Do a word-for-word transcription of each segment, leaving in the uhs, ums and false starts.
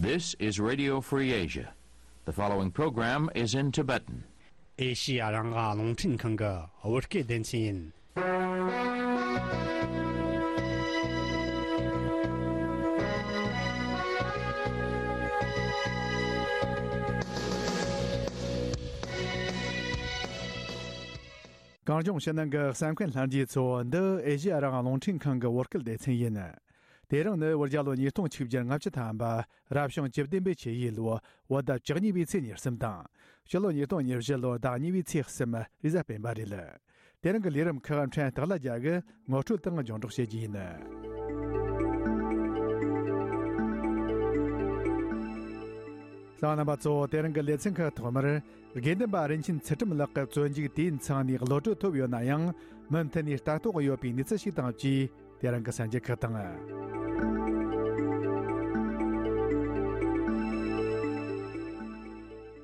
This is Radio Free Asia. The following program is in Tibetan. ཨེ་ཤི་ཡ་རང་དབང་རླུང་འཕྲིན་ཁང་གི་བོད་སྐད་སྡེ་ཚན་ཡིན། གངས་ལྗོངས་ཕྱི་ནང་གི་གསན་མཁན་ལྷན་རྒྱས་ཚོ། འདི་ཨེ་ཤི་ཡ་རང་དབང་རླུང་འཕྲིན་ཁང་གི་བོད་སྐད་སྡེ་ཚན་ཡིན། དེ་རིང་ནི་བོད་རྒྱལ་ལོ་ཉིས་སྟོང་ཆིག་བརྒྱ་ལྔ་བཅུ་ཐམ་པ། རབ་བྱུང་བཅུ་བདུན་པའི་ཆུ་ཡོས་ལོ། བོད་ཟླ་བཅུ་གཉིས་པའི་ཚེས་ཉེར་གསུམ་དང་། ཕྱི་ལོ་ཉིས་སྟོང་ཉེར་བཞི་ལོ་ཟླ་གཉིས་པའི་ཚེས་གསུམ། རེས་གཟའ་སྤེན་པ་རེད། དེ་རིང་གི་ལས་རིམ་ཁག་ཕྲན་སྟག་ལྷ་རྒྱལ་གྱིས་ངོ་སྤྲོད་དང་སྙན་སྒྲོན་བྱེད་རྒྱུ་ཡིན། གསན་མཁན་རྣམ་པ་ཚོ། དེ་རིང་གི་ལེ་ཚན་ཁག་ཐོག་མར། དགེ་འདུན་པ་རིན་ཆེན་ཚུལ་ཁྲིམས་ལགས་ཀྱི་བཙོན་འཇུག་དུས་ཡུན་ཚང་ནས་གློད་གྲོལ་ཐོབ་ཡོད་ན་ཡང་། མུ་མཐུད་ནས་ལྟ་རྟོག་ཡོད་པའི་གནས་ཚུལ་ཞིག་དང་བཅས། དེ་རིང་གི་གསར་འགྱུར་ཁག་དང་།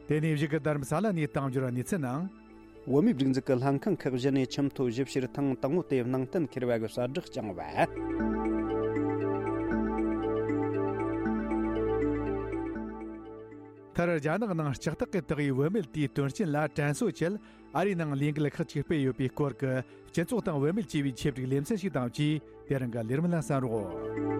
དེ་ནས་གཞུག་གི་རྡ་རམ་ས་ལ་ནས་གཏམ་བརྗོད་གནས་ཚུལ་ནང་། བོད་མིའི་སྒྲིག་འཛུགས་ཀྱི་ལྷན་ཁང་ཁག་བཞི་ནས་ཁྲིམས་ཐོག་ཞིབ་བཤེར་ཐེངས་དང་པོ་དེ་ནང་གཏན་འཁེལ་བ་གི་གསལ་བསྒྲགས་བསྐྱངས་པ། མཐར། རྒྱ་ནག་ནང་ལྕགས་ཐག་གིས་བཏགས་པའི་བུད་མེད་དེའི་དོན་རྐྱེན་ལ་དྲན་གསོ་ཆེད་ཨ་རིའི་ནང་ལས་འགུལ་ཁག་ཅིག་སྤེལ་ཡོད་པའི་སྐོར་གྱི་སྤྱི་ཚོགས་དང་བུད་མེད་ཅེས་པའི་ཆེད་བསྒྲིགས་ལེ་ཚན་ཞིག་དང་བཅས། དེ་རིང་གི་ལས་རིམ་ལ་གསན་རོགས།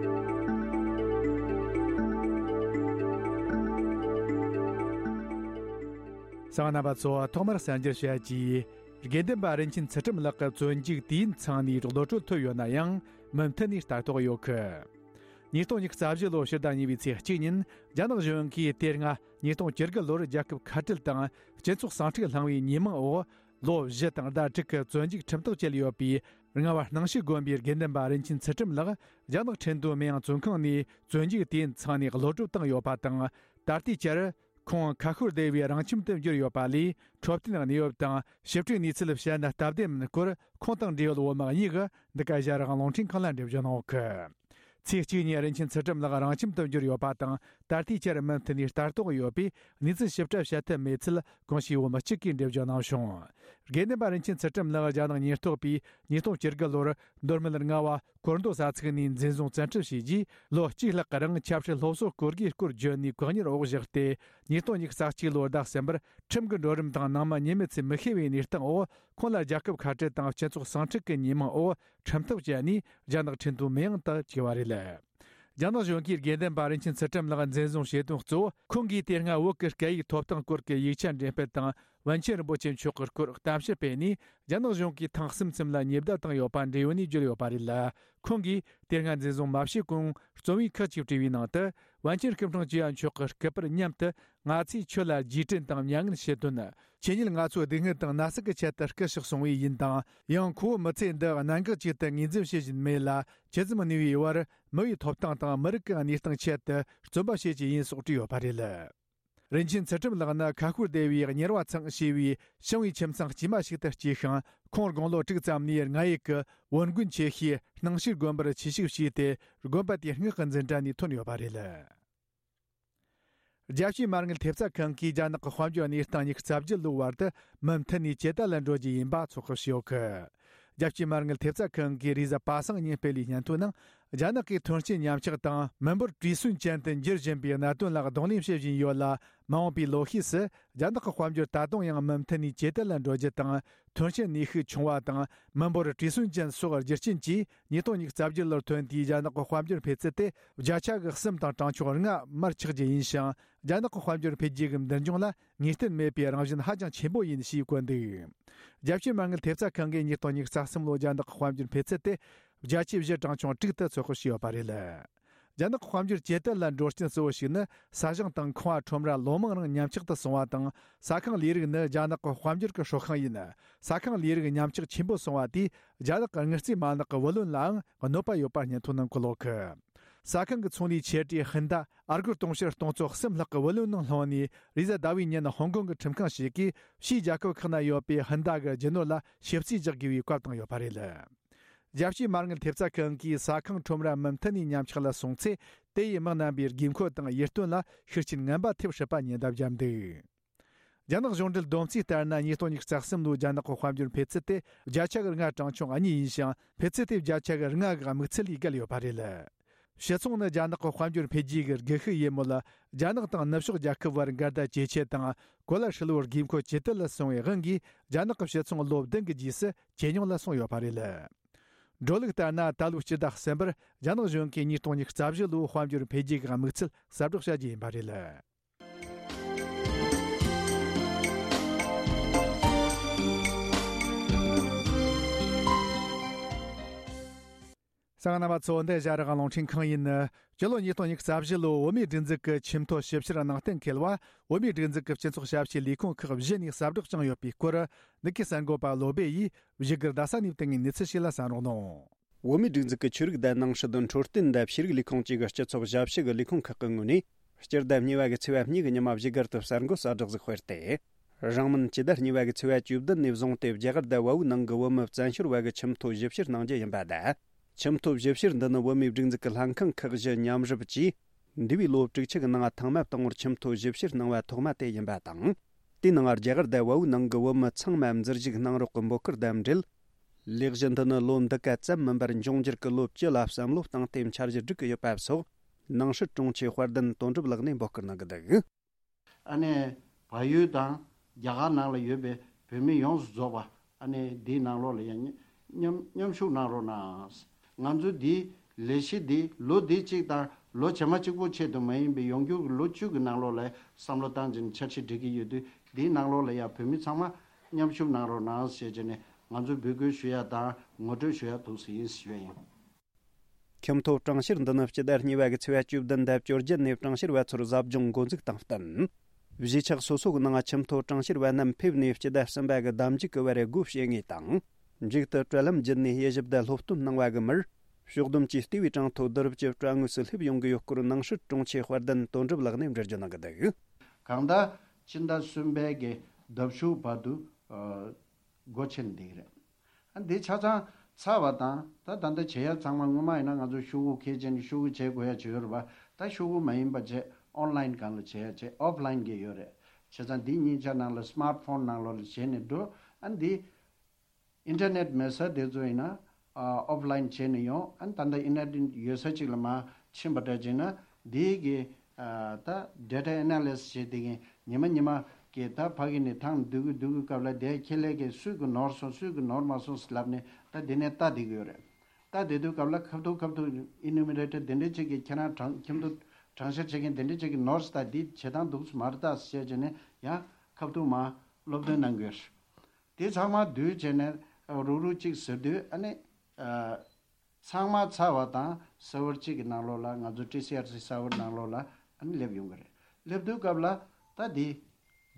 གསན་མཁན་རྣམ་པ་ཚོ། ཐོག་མར་གསར་འགྱུར་བཤད་ཀྱིས། དགེ་འདུན་པ་རིན་ཆེན་ཚུལ་ཁྲིམས་ལགས་ཀྱི་བཙོན་འཇུག་དུས་ཡུན་ཚང་ནས་གློད་གྲོལ་ཐོབ་ཡོད་ན་ཡང་། མུ་མཐུད་ནས་ལྟ་རྟོག་ཡོད་གི། ཉིས་སྟོང་ཉི་ཤུ་རྩ་བཞི་ལོ་ཕྱི་ཟླ་གཉིས་པའི་ཚེས་གཅིག་ཉིན། རྒྱ་ནག་གཞུང་གིས་དེ་སྔ་ཉིས་སྟོང་བཅུ་དགུ་ལོར་རྒྱལ་ཁབ་ཁ་བྲལ་དང་སྤྱི་ཚོགས་ཟིང་འཁྲུག་བསླངས་པའི་ཉེས་མིང་འོག་ལོ་བཞི་དང་ཟླ་དྲུག་གི་བཙོན་འཇུག་ཁྲིམས་ཐག་བཅད་ཡོད་པའི་རྔ་བ་སྣང་ཞིག་དགོན་པའི་དགེ་འདུན་པ་རིན་ཆེན་ཚུལ་ཁྲིམས་ལགས། རྒྱ་ནག་ཁྲིན་ཏུའུ་མིན་ཡང་བཙོན་ཁང་ནས་བཙོན་འཇུག་དུས་ཡུན་ཚང་ནས་གློད་གྲོལ་བཏང་ཡོད་པ་དང་། ད་ལྟའི་ཆར། ཁོང་ཁ་ཤོར་བསྡད་པའི་རང་ཁྱིམ་དུ་འབྱོར་ཡོད་པ་ལས། འཕྲོད་བསྟེན་གནས་བབ་དང་ཞིབ་ཕྲའི་གནས་ཚུལ་བཤད་ན་སྟབས་བདེ་མིན་སྐོར། ཁོང་དང་འབྲེལ་ཡོད་བོད་དམག་གཉིས་ཀྱིས་འདི་ག་ཨེ་ཤ་ཡ་རང་དབང་རླུང་འཕྲིན་ཁང་ལ་འགྲེལ་བརྗོད་གནང་ཡོད་གི། ཚེས་གཅིག་ཉིན་རིན་ཆེན་ཚུལ་ཁྲིམས་ལགས་རང་ཁྱིམ་དུ་འབྱོར་ཡོད་པ་དང་། ད་ལྟའི་ཆར་མུ་མཐུད་ནས་ལྟ་རྟོག་ཡོད་པས། གནས་ཚུལ་ཞིབ་ཕྲ་བཤད་ཐུབ་མེད་ཚུལ་གོང་ཞུས་བོད་མི་གཅིག་གིས་འགྲེལ་བརྗོད་གནང་བྱུང་། དགེ་འདུན་པ་རིན་ཆེན་ཚུལ་ཁྲིམས་ལགས་རྒྱ་ནག་ཉེན་རྟོག་པས་ཉིས་སྟོང་བཅུ་དགུ་ལོར་མདོ་སྨད་རྔ་བ་སྐོར་མདོ་ས་ཚིགས་ནས་འཛིན་བཟུང་བཙན་ཁྲིད་བྱས་རྗེས། ལོ་གཅིག་ལྷག་གི་རིང་ཆབ་སྲིད་སློབ་གསོ་སྐོར་དགུའི་སྐོར་བརྗོད་ནས་བཀག་ཉར་འོག་བཞག་སྟེ། ཉིས་སྟོང་ཉི་ཤུ་རྩ་གཅིག་ལོར་ཟླ་གསུམ་པར་ཁྲིམས་ཀྱི་འགྲོ་རིམ་དང་ནང་མི་ཉེས་མེད་ཚུལ་མི་ཤེས་པའི་གནས་སྟངས་འོག་ཁོང་ལ་རྒྱལ་ཁབ་ཁ་བྲལ་དང་སྤྱི་ཚོགས་ཟིང་འཁྲུག་གི་ཉེས་མིང་འོག་ཁྲིམས་ཐག་བཅད་ནས་རྒྱ་ནག་ཁྲིན་ཏུའུ་མིན་ཡང་དུ་བཅུག་པ་རེད། རྒྱ་ནག་གཞུང་གིས་དགེ་འདུན་པ་རིན་ཆེན་ཚུལ་ཁྲིམས་ལགས་འཛིན་བཟུང་བྱེད་དོན་གཙོ་བོ། ཁོང་གིས་དེ་སྔ་བོད་ཀྱི་སྐད་ཡིག་ཐོབ་ཐང་སྐོར་གྱི་ཡིག་ཆ་འགྲེམས་སྤེལ་དང་། པཎ་ཆེན་རིན་པོ་ཆེ་མཆོག་གི་སྐོར་གཏམ་བཤད་སྤེལ་ནས། རྒྱ་ནག་གཞུང་གིས་ཐེངས་གསུམ་གསུམ་ལ་ཉེས་བརྡ་བཏང་ཡོད་པ་འབྲེལ་ཡོད་ནས་བརྗོད་ཡོད་པ་རེད། ཁོང་གིས་དེ་སྔ་འཛིན་བཟུང་མ་བྱས་གོང་རྩོམ་ཡིག་ཁག་ཅིག་བྲིས་པའི་ནང་དུ། པཎ་ཆེན་སྐུ་ཕྲེང་བཅུ་བ་མཆོག་གི་སྐུ་པར་མཉམ་དུ། ང་ཚོས་ཁྱོད་ལ་རྗེས་དྲན་དང་མྱ་ངན་ཞུ་དོན། ཁྱེད་ཉིད་ང་ཚོའི་སྡུག་བསྔལ་དང་ན་ཟུག་གི་ཆེད་དུ་སྐུ་གཤེགས་སོང་བས་ཡིན་དང་། ཡང་ཁོ་བོ་མི་ཚེ་འདི་གནད་འགག་ཅིག་ཏུ་ངོས་འཛིན་བྱེད་བཞིན་མེད་ལ། ཇི་ཙམ་ནུས་པའི་བར་མི་ཡི་ཐོབ་ཐང་དང་མི་རིགས་ཀྱི་གནས་སྟངས་ཆེད་དུ་རྩོམ་པ་བྱེད་ཀྱི་ཡིན་སོགས་བྲིས་ཡོད་པ་རེད། རིན་ཆེན་ཚུལ་ཁྲིམས་ལགས་ནི་ཁ་ཤོར་བསྡད་པའི་གཉེར་བ་ཚང་ཞེས་པའི་ཞིང་བའི་ཁྱིམ་ཚང་དཀྱུས་མ་ཞིག་ཏུ་སྐྱེས་ཤིང་། ཁོང་དགུང་ལོ་དྲུག་ཙམ་ནས་རྔ་ཡབ་ཀྱི་བོན་དགོན་ཆེ་ཤོས་སྣང་ཞིག་དགོན་པར་ཆོས་ཞུགས་བྱས་ཏེ། དགོན་པ་དེའི་སྔགས་ཀྱི་འཛིན་གྲྭ་ནས་ཐོན་ཡོད་པ་རེད། རྒྱལ་སྤྱིའི་མ་དངུལ་ཐེབས་རྩ་ཁང་གིས་རྒྱ་ནག་གི་དཔལ་འབྱོར་གནས་སྟངས་ཉི་ཤུ་རྩ་བརྒྱད་ལོའི་བར་དུ་མུ་མཐུད་ནས་ཇེ་དར་ལ་འགྲོ་རྒྱུ་ཡིན་པ་ཚོད་དཔག་བྱས་ཡོད་གི། རྒྱལ་སྤྱིའི་མ་དངུལ་ཐེབས་རྩ་ཁང་གིས་རེས་གཟའ་པ་སངས་ཉིན་སྤེལ་བའི་སྙན་ཐོའི་ནང་། རྒྱ་ནག་གིས་ཐོན་སྐྱེད་ཉམས་ཆག་དང་མི་འབོར་བྲོས་སོན་ཅན་དུ་འགྱུར་བཞིན་པའི་གནད་དོན་ལ་གདོང་ལེན་བྱེད་བཞིན་ཡོད་ལ། མ་འོངས་པའི་ལོ་ཤས་སུ་རྒྱ་ནག་གི་དཔལ་འབྱོར་ད་དུང་ཡང་མུ་མཐུད་ནས་ཇེ་དར་ལ་འགྲོ་རྒྱུ་དང་། ཐོན་སྐྱེད་ནུས་ཤུགས་ཆུང་བ་དང་མི་འབོར་བྲོས་སོན་ཅན་སོགས་རྒྱུ་རྐྱེན་གྱིས། ཉིས་སྟོང་ཉི་ཤུ་རྩ་བརྒྱད་ལོར་ཐོན་དུས་རྒྱ་ནག་གི་དཔལ་འབྱོར་འཕེལ་ཚད་དེ་བརྒྱ་ཆ་གི་གསུམ་དང་གྲངས་ཆུང་ལྔ་མར་ཆག་རྒྱུ་ཡིན་ཞིང་། རྒྱ་ནག་གི་དཔལ་འབྱོར་འཕེལ་རྒྱས་ཀྱི་མདུན་ལྗོངས་ལ་ངེས་གཏན་མེད་པའི་རང་བཞིན་ཧ་ཅང་ཆེན་པོ་ཡིན་ཞེས་བཀོད་འདུག། རྒྱལ་སྤྱིའི་མ་དངུལ་ཐེབས་རྩ་ཁང་གིས་ཉིས་སྟོང་ཉི་ཤུ་རྩ་གསུམ་ལོའི་རྒྱ་ནག་གི་དཔལ་འབྱོར་འཕེལ་ཚད་དེ་བརྒྱ་ཆ་བཞི་གྲངས་ཆུང་དྲུག་ཏུ་ཚོད་དཔག་བྱས་ཡོད་པ་རེད། རྒྱ་ནག་གི་དཔལ་འབྱོར་ཇེ་དར་ལ་འགྲོ་རྐྱེན་གཙོ་བོ་ཞིག་ནི། ས་ཞིང་དང་ཁང་བ་ཁྲོམ་ར་ལོ་མང་རིང་ཉམས་ཆག་ཏུ་སོང་བ་དང་། ས་ཁང་ལས་རིགས་ནི་རྒྱ་ནག་གི་དཔལ་འབྱོར་གྱི་ཧྲོག་ཤིང་ཡིན། ས་ཁང་ལས་རིགས་ཉམས་ཆག་ཆེན་པོ་སོང་བ་དེས་རྒྱ་ནག་གི་དངུལ་རྩིས་མ་ལག་གི་བུ་ལོན་ལའང་གནོད་པ་ཡོད་པ་སྙན་ཐོའི་ནང་འཁོད་ཡོད་གི། ས་ཁང་གི་ཚོང་ལས་ཆེ་གྲས་ཧིན་ད་ཨར་སྒོར་དུང་ཕྱུར་སྟོང་ཚོ་གསུམ་ལྷག་གི་བུ་ལོན་ནང་ལྷུང་ནས། རེས་གཟའ་ཟླ་བའི་ཉིན་ཧོང་ཀོང་གི་ཁྲིམས་ཁང་ཞིག་གིས་ཕྱིའི་རྒྱལ་ཁབ་ཁག་ན་ཡོད་པའི་ཧིན་ད་གི་རྒྱུ་ནོར་ལ་ཞིབ་རྩིས་རྒྱག་དགོས་པའི་བཀའ་བཏང་ཡོད་པ་རེད། རྒྱལ་སྤྱིའི་མ་དངུལ་ཐེབས་རྩ་ཁང་གིས་ས་ཁང་ཁྲོམ་ར་མུ་མཐུད་ནས་ཉམས་ཆག་ལ་སོང་ཚེ། དེ་ཡིས་མི་རྣམ་པའི་དགོས་མཁོ་དང་ཡིད་རྟོན་ལ་ཤུགས་རྐྱེན་ངན་པ་ཐེབས་སྲིད་པ་ཉེན་བརྡ་བརྒྱབ་འདུག། རྒྱ་ནག་གཞུང་འབྲེལ་བསྡོམས་རྩིས་ལྟར་ན། ཉིས་སྟོང་ཉི་ཤུ་རྩ་གསུམ་ལོའི་རྒྱ་ནག་གི་དཔལ་འབྱོར་འཕེལ་ཚད་དེ་བརྒྱ་ཆ་གི་ལྔ་གྲངས་ཆུང་གཉིས་ཡིན་ཞིང་། འཕེལ་ཚད་དེ་བརྒྱ་ཆ་གི་ལྔ་གི་དམིགས་ཚད་ལས་བརྒལ་ཡོད་པ་རེད། ཕྱི་ཚོང་ནི་རྒྱ་ནག་གི་དཔལ་འབྱོར་འཕེལ་རྒྱས་ཀྱི་སྒུལ་ཤུགས་ཡིན་མོད། རྒྱ་ནག་དང་ནུབ་ཕྱོགས་རྒྱལ་ཁབ་བར་འགལ་ཟླ་ཇེ་ཆེ་དང་གོ་ལ་ཧྲིལ་བོར་དགོས་མཁོ་ཇེ་དལ་ལ་སོང་བའི་དབང་གིས། རྒྱ་ནག་གི་ཕྱི་ཚོང་ལོ་བདུན་གྱི་རྗེས་སུ་ཇེ་ཉུང་ལ་སོང་ཡོད་པ་རེད། འགྲོ་ལུགས་ལྟར་ན། ད་ལོའི་སྤྱི་ཟླ་གསུམ་པར་རྒྱ་ནག་གཞུང་གིས་ཉིས་སྟོང་ཉི་ཤུ་རྩ་བཞི་ལོའི་དཔལ་འབྱོར་འཕེལ་རྒྱས་ཀྱི་དམིགས་ཚད་གསལ་བསྒྲགས་བྱ་རྒྱུ་ཡིན་པ་རེད། གསན་མཁན་རྣམ་པ་ཚོ། འདི་ཨེ་ཤ་ཡ་རང་དབང་རླུང་འཕྲིན་ཁང་ཡིན། སྤྱི་ལོ་ཉིས་སྟོང་ཉི་ཤུ་རྩ་བཞི་ལོའི་བོད་མིའི་སྒྲིག་འཛུགས་ཀྱི་ཆེས་མཐོའི་ཞིབ་བཤེར་ནང་གཏན་འཁེལ་བ། བོད་མིའི་སྒྲིག་འཛུགས་ཀྱི་སྤྱི་ཚོགས་ཞབས་ཕྱིའི་ལས་ཁུངས་ཁག་བཞི་ནས་གསལ་བསྒྲགས་བྱུང་ཡོད་པའི་སྐོར། ནུ་ཁི་གསར་འགོད་པ་བློ་སྦེ་ཡིས་བཞུགས་སྒར་རྡ་ས་ནས་བཏང་བའི་གནས་ཚུལ་ཞིག་ལ་གསན་རོགས་གནང་། བོད་མིའི་སྒྲིག་འཛུགས་ཀྱི་ཆོས་རིག་དང་ནང་སྲིད། འཕྲོད་བསྟེན་དང་ཤེས་རིག་ལས་ཁུངས་བཅས་ཀྱི་སྤྱི་ཚོགས་ཞབས་ཞུ་གི་ལས་ཁུངས་ཁག་གི་ངོས་ནས། སྤྱི་ཟླ་གཉིས་པ་གི་ཚེས་པ་གཉིས་ཀྱི་ཉི་མ་བཞུགས་སྒར་དུ་གསར་འགོད་གསར་བསྒྲགས་ཤིག་སྤེལ་ཏེ། རིང་མིན་སྤྱི་ཟླ་གཉིས་པ་གི་ཚེས་པ་བཅུ་བདུན་ནས་བཟུང་སྟེ། རྒྱ་གར་དང་བལ་པོའི་ནང་གི་བོད་མི་བཙན་བྱོལ་བ་གི་ཁྱིམ་ཐོ་ཞིབ་བཤེར་གནང་རྒྱུ་ཡིན་པ་དང་། ཁྱིམ་ཐོ་ཞིབ་བཤེར་འདི་ནི་བོད་མིའི་སྒྲིག་འཛུགས་ཀྱི་ལྷན་ཁང་ཁག་བཞི་མཉམ་རུབ་ཀྱིས། འདས་པའི་ལོ་དྲུག་ཅུ་གི་ནང་ཐེངས་མ་དང་པོར་ཁྱིམ་ཐོ་ཞིབ་བཤེར་གནང་བ་ཐོག་མ་དེ་ཡིན་པ་དང་། དེའི་ནང་རྒྱ་གར་དང་བལ་པོའི་ནང་གི་བོད་མི་ཚང་མ་འཛུལ་ཞུགས་གནང་རོགས་ཀྱི་འབོད་སྐུལ་དང་འབྲེལ། ལས་གཞི་འདི་ནི་ལོ་འདི་ག་ཙམ་མིན་པར་འབྱུང་འགྱུར་གྱི་ལོ་བཅུ་ལ་བསམ་བློ་བཏང་སྟེ་འཆར་གཞི་སྒྲིག་གི་ཡོད་པ་སོགས། ནང་སྲིད་དྲུང་ཆེ་དཔལ་ལྡན་དོན་གྲུབ་ལགས་ནས་འབོད་སྐུལ་གནང་གི་འདུག། ཨ་ནི་བལ་ཡུལ་དང་རྒྱ་གར་ནང་ལ་ཡོད་པའི་བོད་མི་ཡོངས་སུ་རྫོགས་པ། ཨ་ནི་འདིའི་ནང་ལོགས་ལ་ཡང་མཉམ་མཉམ་ཞུགས་གནང་རོགས་གནང་། ང་ཚོ་འདིའི་ལས་གཞི་འདི་ལོ་འདི་གཅིག་དང་ལོ་རྗེས་མ་གཅིག་པོ་ཆེད་དུ་མ་ཡིན་པའི་ཡོང་རྒྱུ་གི་ལོ་བཅུ་གི་ནང་ལོགས་ལ་བསམ་བློ་བཏང་བྱས་ནས་འཆར་གཞི་སྒྲིག་གི་ཡོད་དུས། འདིའི་ནང་ལོགས་ལ་ཡང་བོད་མི་ཚང་མ་མཉམ་ཞུགས་གནང་རོགས་གནང་ཞེས་བྱས་ནས་ང་ཚོས་འབོད་སྐུལ་ཞུ་ཡ་དང་ངོ་སྤྲོད་ཞུ་ཡ་ཐུགས་སུ་ཡིན་ཞུ་ཡ་ཡིན། ཁྱིམ་ཐོ་གྲངས་བཤེར་འདི་ནི་སྤྱི་ཟླ་གཉིས་པ་གི་ཚེས་པ་བཅུ་བདུན་དང་བཅོ་བརྒྱད་ནས་གྲངས་བཤེར་བ་ཚོར་ཟབ་སྦྱོང་འགོ་འཛུགས་དང་བསྟུན། གཞིས་ཆགས་སོ་སོ་གི་ནང་ཁྱིམ་ཐོ་གྲངས་བཤེར་བ་རྣམས་ཕེབས་ནས་སྤྱི་ཟླ་གསུམ་པ་གི་ཟླ་མཇུག་གི་བར་སྒོ་ཕྱེ་ངེས་དང་། མཇུག་ཏུ་དྲ་ལམ་བརྒྱུད་ནས་དབྱེ་ཞིབ་དང་སློབ་སྟོན་གནང་བ་གི་མིར། ཕྱོགས་བསྡོམས་ཀྱིས་ལྟེ་བའི་གྲངས་ཐོ་བསྡུ་རུབ་ཀྱི་དྲ་ངོས་སུ་སླེབས་ཡོང་གི་ཡོད་སྐོར་ནང་སྲིད་དྲུང་ཆེ་དཔལ་ལྡན་དོན་གྲུབ་ལགས་ནས་འགྲེལ་བརྗོད་གནང་གི་འདུག། གང་ལྟར་སྤྱི་ཟླ་གསུམ་པའི་གི་ཟླ་མཇུག་བར་དུ་ཨ་སྒོ་ཕྱེ་ནས་བསྡད་ཀྱི་རེད། ཨ་འདི་ཆ་ཚང་ཚར་བ་དང་། ད་ད་ལྟ་བྱེད་ཡ་ཚང་མ། སྔོན་མ་ཡིན་ན་ང་ཚོ་ཤོག་གུ་འཁྱེར་བྱས་ནས་ཤོག་གུ་བྱེད་དགོས་ཡ་ཅིག་ཡོད་རེད་པ། ད་ཤོག་གུ་མ་ཡིན་པ་བྱས་ཨོན་ལན་སྒང་ལ་བྱེད་ཡ་བྱས་ཨོཕ་ལན་གྱི་ཡོད་རེད། བྱས་ཙང་འདི་གཉིས་ཆ་ནང་ལ་སི་མར་ཕོན་ནང་ལོགས་ལ་བྱས་ནས་འགྲོ། ཨ་འདི་ཨིན་ཊར་ནེཊ་མེད་ས་དེ་ཚོ་ཡིན་ན་ཨ་ཨོཕ་ལན་བྱས་ནས་ཡོང་། ཨ་ད་ལྟ་ཨིན་ཊར་ནེཊ་ཡོད་ས་ཅིག་ལ་མར་ཕྱིན་པ་འདྲ་བྱས་ན་འདི་གི་ཨ་ད་ཌེ་ཊ་ཨེ་ན་ལི་སིས་བྱེད་དེ་གིན་ཉི་མ་ཉི་མ་གི་ད་ཕ་གི་ནས་ཐང་སྡུད་གི་སྡུད་གི་སྐབས་ལ་དེ་ཁྱེད་ལས་ཀའི་སུས་གི་ནོར་སོང་སུས་གི་ནོར་མ་སོང་ཟེར་ལབ་ནས་ད་དེ་ནས་ལྟ་བསྡད་གི་ཡོད་རེད། ལྟ་བསྡད་དུས་སྐབས་ལ་ཁ་ཐུག་ཁ་ཐུག་ཨི་ནུ་མི་རེ་ཊར་དེ་འདྲ་ཅིག་གིས་ཁྱེད་རང་གྲངས་ཁྱིམ་ཐོ་གྲངས་བཤེར་བྱེད་མཁན་དེ་འདྲ་ཅིག་གིས་ནོར་སོང་། ད་འདི་བྱེད་སྟངས་འདུག་སེ་མ་རེད་ད་ཟེར་བྱས་ནས་ཡང་ཁ་ཐུག་མར་སློབ་སྟོན་གནང་གི་ཡོད་རེད། དེ་ཚང་མ་བསྡུས་བྱས་ནས་རུག་རུག་ཅིག་ཟེར་དུས་ཨ་ནི། ཨ། ཚང་མ་ཚར་བ་དང་སར་ཝར་གཅིག་གི་ནང་ལོགས་ལ་ང་ཚོ་ཊི་སི་ཨར་སི་སར་ཝར་ནང་ལོགས་ལ་ཨ་ནི་སླེབས་ཡོང་གི་རེད། སླེབས་དུས་སྐབས་ལ་ད་འདི་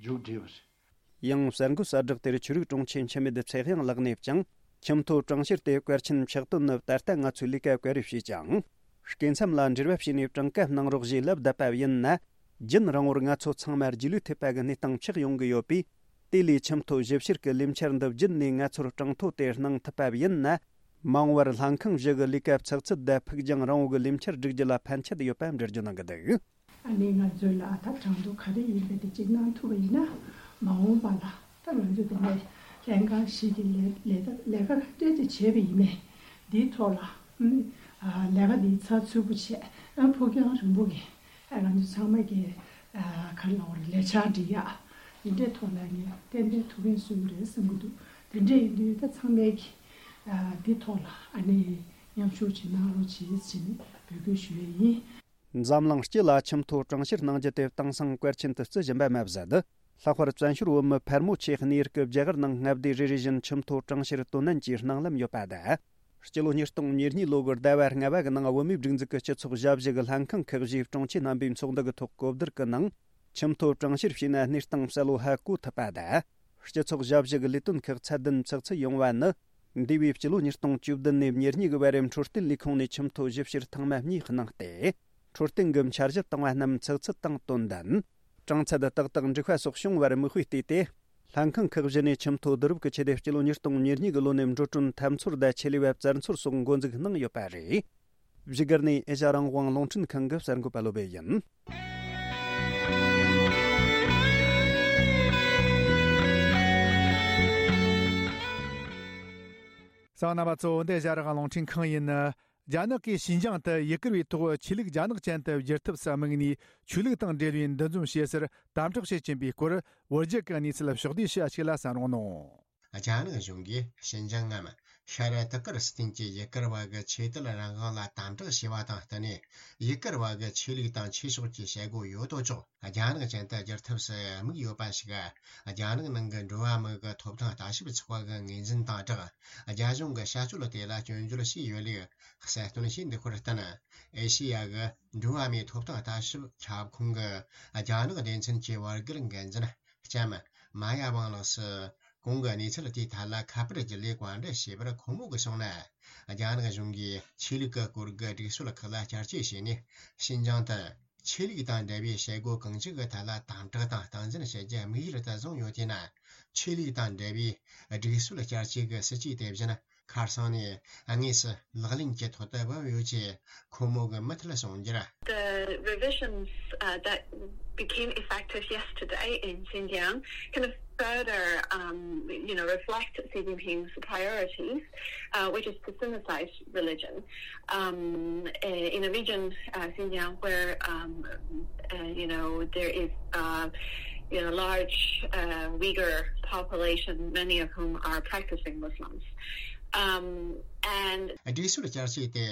མཇུག་སྒྲིལ་བ་རེད། ཡང་གསར་འགོད་གསལ་བསྒྲགས་དེར་ཆོས་རིག་དྲུང་ཆེ་འཆི་མེད་ཚེ་དབྱངས་ལགས་ནས་ཀྱང་། ཁྱིམ་ཐོ་གྲངས་བཤེར་དེ་གལ་ཆེན་ཕྱག་དོན་ནི་ད་ལྟ་ང་ཚོས་ལས་ཀ་ག་རེ་བྱས་ཀྱང་། སྐྱེ་མཚམས་ལ་འབྲེལ་བ་བྱས་ནས་གྲངས་ཀ་གནང་རོགས་ཞེས་ལབ་བསྡད་པ་ཡིན་ན། རྒྱུན་རིང་བོར་ང་ཚོ་ཚང་མ་རྗེས་ལུས་ཐེབས་པ་གི་གནས་སྟངས་ཆགས་ཡོང་གི་ཡོད་པས། དེ་ལས་ཁྱིམ་ཐོ་ཞིབ་བཤེར་གྱི་ལས་འཆར་འདི་བརྒྱུད་ནས་ང་ཚོར་གྲངས་ཐོ་དེ་གནང་ཐུབ་པ་ཡིན་ན། མ་འོངས་པར་ལྷན་ཁང་བཞི་གི་ལས་ཀ་ཚགས་ཚུད་དང་ཕུགས་རྒྱང་རིང་བོ་གི་ལས་འཆར་བསྒྲིག་རྒྱུ་ལ་ཕན་ཆད་ཡོད་པ་འགྲེལ་བརྗོད་གནང་གི་འདུག། ཨ་ནི་ང་ཚོས་ལ་ད་གྲངས་ཐོ་ག་རེ་ཡིན་པ་དེ་གཅིག་གནང་ཐུབ་པ་ཡིན་ན། མ་འོངས་པ་ལ་ད་ང་ཚོ་དེ་ནས་ལྷན་ཁང་བཞི་གི་ལས་ལས་ལས་ཀ་ཏོག་ཙམ་བྱས་པ་ཡིན་ནའི། འདིའི་ཐོག་ལ་ཨ་ནི་ལས་ཀ་འདི་ཚགས་ཚུད་པོ་བྱས། ཨ་ཕུགས་རྒྱང་རིང་པོ་གི་ཨ་ང་ཚོ་ཚང་མ་གི་ཨ་ག་རེ་ལབ་དགོས་རེད། ལས་འཆར་སྒྲིག་ཡག་འདི་འདྲའི་ཐོག་ལ་ངས་ཏན་ཏན་ཐུགས་ཕན་གསོས་ཀྱི་རེད་བསམ་གྱི་འདུག། དེ་འདྲ་ཡིན་དུས་ད་ཚང་མས་ཀྱི་ཨ་འདི་ཐོག་ལ་ཨ་ནི་མཉམ་ཞུགས་ཅིག་གནང་རོགས་བྱེད་ཟེར་ནས་འབོད་སྐུལ་ཞུ་ཡས་ཡིན། འཛམ་གླིང་སྤྱི་ལ་ཁྱིམ་ཐོ་གྲངས་བཤེར་གནང་རྒྱུ་དེ་དེང་སང་གལ་ཆེན་དུ་བརྩི་བཞིན་པ་མ་ཟད། ལྷག་པར་བཙན་བྱོལ་བོད་མི་ཕལ་མོ་ཆེ་གནས་ཡུལ་གྱི་རྒྱ་གར་ནང་མངའ་སྡེ་རེ་རེ་བཞིན་ཁྱིམ་ཐོ་གྲངས་བཤེར་དོན་ལྡན་གྱི་སྣང་ལམ་ཡོད་པ་དང་། སྤྱི་ལོ་ཉིས་སྟོང་ཉེར་གཉིས་ལོ་གི་ཟླ་བ་ལྔ་པ་གི་ནང་བོད་མིའི་སྒྲིག་འཛུགས་ཀྱི་སྤྱི་ཚོགས་ཞབས་ཞུ་གི་ལྷན་ཁང་ཁག་བཞིའི་དྲུང་ཆེ་རྣམ་པའི་ཚོགས་འདུ་གི་ཐོག་གོ་བསྡུར་གྱི་ནང་། ཁྱིམ་ཐོ་གྲངས་བཤེར་བྱས་ན་གནས་སྟངས་གསལ་བོ་ཧ་གོ་ཐུབ་པ་དང་། སྤྱི་ཚོགས་ཞབས་ཞུ་གི་ལས་དོན་ཁག་ཚད་ལྡན་ཚགས་ཚུད་ཡོང་བ་ནི། འདས་པའི་སྤྱི་ལོ་ཉིས་སྟོང་བཅུ་བདུན་ནས་ཉེར་གཉིས་ཀྱི་བར་འཕྲོད་བསྟེན་ལས་ཁུངས་ནས་ཁྱིམ་ཐོ་ཞིབ་བཤེར་ཐེངས་མ་གཉིས་གནང་སྟེ། འཕྲོད་བསྟེན་གྱི་འཆར་གཞི་བཏིང་བ་རྣམས་ཚགས་ཚུད་དང་དོན་ལྡན། གྲངས་ཚད་ཏག་ཏག་འགྲིག་པ་སོགས་བྱུང་བར་མིག་དཔེ་བལྟས་ཏེ། ལྷན་ཁང་ཁག་བཞི་ནས་ཁྱིམ་ཐོ་བསྡུ་རུབ་ཀྱི་ཆེད་དུ་སྤྱི་ལོ་ཉིས་སྟོང་ཉེར་གཉིས་ཀྱི་ལོ་ནས་འགྲོ་གྲོན་ཐབས་འཚོལ་དང་ཆེད་ལས་པ་བཙལ་འཚོལ་སོགས་འགོ་འཛུགས་གནང་ཡོད་པ་རེད། བཞུགས་སྒར་ནས་ཨེ་ཤ་ཡ་རང་དབང་རླུང་འཕྲིན་ཁང་གི་གསར་འགོད་པ་བློ་སྦེ་ཡིན། གསན་མཁན་རྣམ་པ་ཚོ། འདི་ཨེ་ཤ་ཡ་རང་དབང་རླུང་འཕྲིན་ཁང་ཡིན། རྒྱ་ནག་གིས་ཤིན་ཅང་དུ་ཡུ་གུར་བའི་ཐོག་ཆོས་ལུགས་རྒྱ་ནག་ཅན་དུ་བསྒྱུར་ཐབས་སུ་དམིགས་ནས། ཆོས་ལུགས་དང་འབྲེལ་བའི་འདུ་འཛོམས་བྱེད་སར་དམ་དྲག་བྱེད་ཀྱིན་པའི་སྐོར། བོད་བརྒྱུད་ཀྱི་གནས་ཚུལ་ཕྱོགས་བསྡུས་ཞུ་ཡ་ཞིག་ལ་གསན་རོགས་གནང་། རྒྱ་ནག་གཞུང་གིས་ཤིན་ཅང་ངམ་ཤར་ཏུར་ཀི་སི་ཐན་གྱི་ཡུ་གུར་བ་གི་ཆོས་དད་རང་དབང་ལ་དམ་དྲག་བྱས་པ་དང་བསྟུན་ནས། ཡུ་གུར་བ་གི་ཆོས་ལུགས་དང་ཆོས་ཕྱོགས་ཀྱི་བྱེད་སྒོ་ཡོད་དོ་ཅོག་རྒྱ་ནག་ཅན་དུ་བསྒྱུར་ཐབས་སུ་དམིགས་ཡོད་པ་ཞིག་རྒྱ་ནག་ནང་གི་འགྲོ་བ་མི་གི་ཐོབ་ཐང་ལྟ་ཞིབ་ཚོགས་པ་གི་ངོས་འཛིན་དང་སྦྲགས། རྒྱ་གཞུང་གི་བྱ་སྤྱོད་དེ་ལ་སྐྱོན་བརྗོད་བྱས་ཡོད་ལུགས་གསལ་སྟོན་བྱས་འདུག་པར་བརྟེན། ཨེ་ཤེ་ཡ་གི་འགྲོ་བ་མིའི་ཐོབ་ཐང་ལྟ་ཞིབ་ཁྱབ་ཁོངས་ཀྱི་རྒྱ་ནག་སྡེ་ཚན་གྱི་བར་བརྒལ་འགན་འཛིན་ལྕམ་མ་ཡ་ཝང་ལགས་སུ། གོང་གི་གནས་ཚུལ་དེའི་ཐད་ལ་ཁ་པར་བརྒྱུད་ལས་བཀའ་འདྲི་བྱས་པར། ཁོང་མོ་གིས་གསུངས་ན། རྒྱ་ནག་གཞུང་གིས་ཆོས་ལུགས་ཀྱི་སྐོར་གྱི་སྒྲིག་སྲོལ་ཁག་ལ་བསྐྱར་བཅོས་བྱས་ནས། ཤིན་ཅང་དུ་ཆོས་ལུགས་དང་འབྲེལ་བའི་བྱེད་སྒོ་གང་ཅིའི་ཐད་ལ་དམ་དྲག་དང་སྟངས་འཛིན་བྱེད་རྒྱུ་དམིགས་ཡུལ་དུ་བཟུང་ཡོད་དེས་ན། ཆོས་ལུགས་དང་འབྲེལ་བའི་སྒྲིག་སྲོལ་བསྐྱར་བཅོས་ཀྱི་སྲིད་ཇུས་དེ་བཞིན་ཁ་སང་ནས་དངོས་སུ་ལག་ལེན་གྱི་ཐོག་ཏུ་བབས་ཡོད་ཅེས་ཁོང་མོ་གིས་མུ་མཐུད་གསུངས་རྒྱུར། The revisions, uh, that became effective yesterday in Xinjiang kind of further, um, you know, reflect Xi Jinping's priorities, uh, which is to Sinicize religion. Um, uh, in a region, uh, Xinjiang, where, um, uh, you know, there is, uh, you know, large, uh, Uyghur population, many of whom are practicing Muslims. Um, and སྒྲིག་སྲོལ་བསྐྱར་བཅོས་དེ་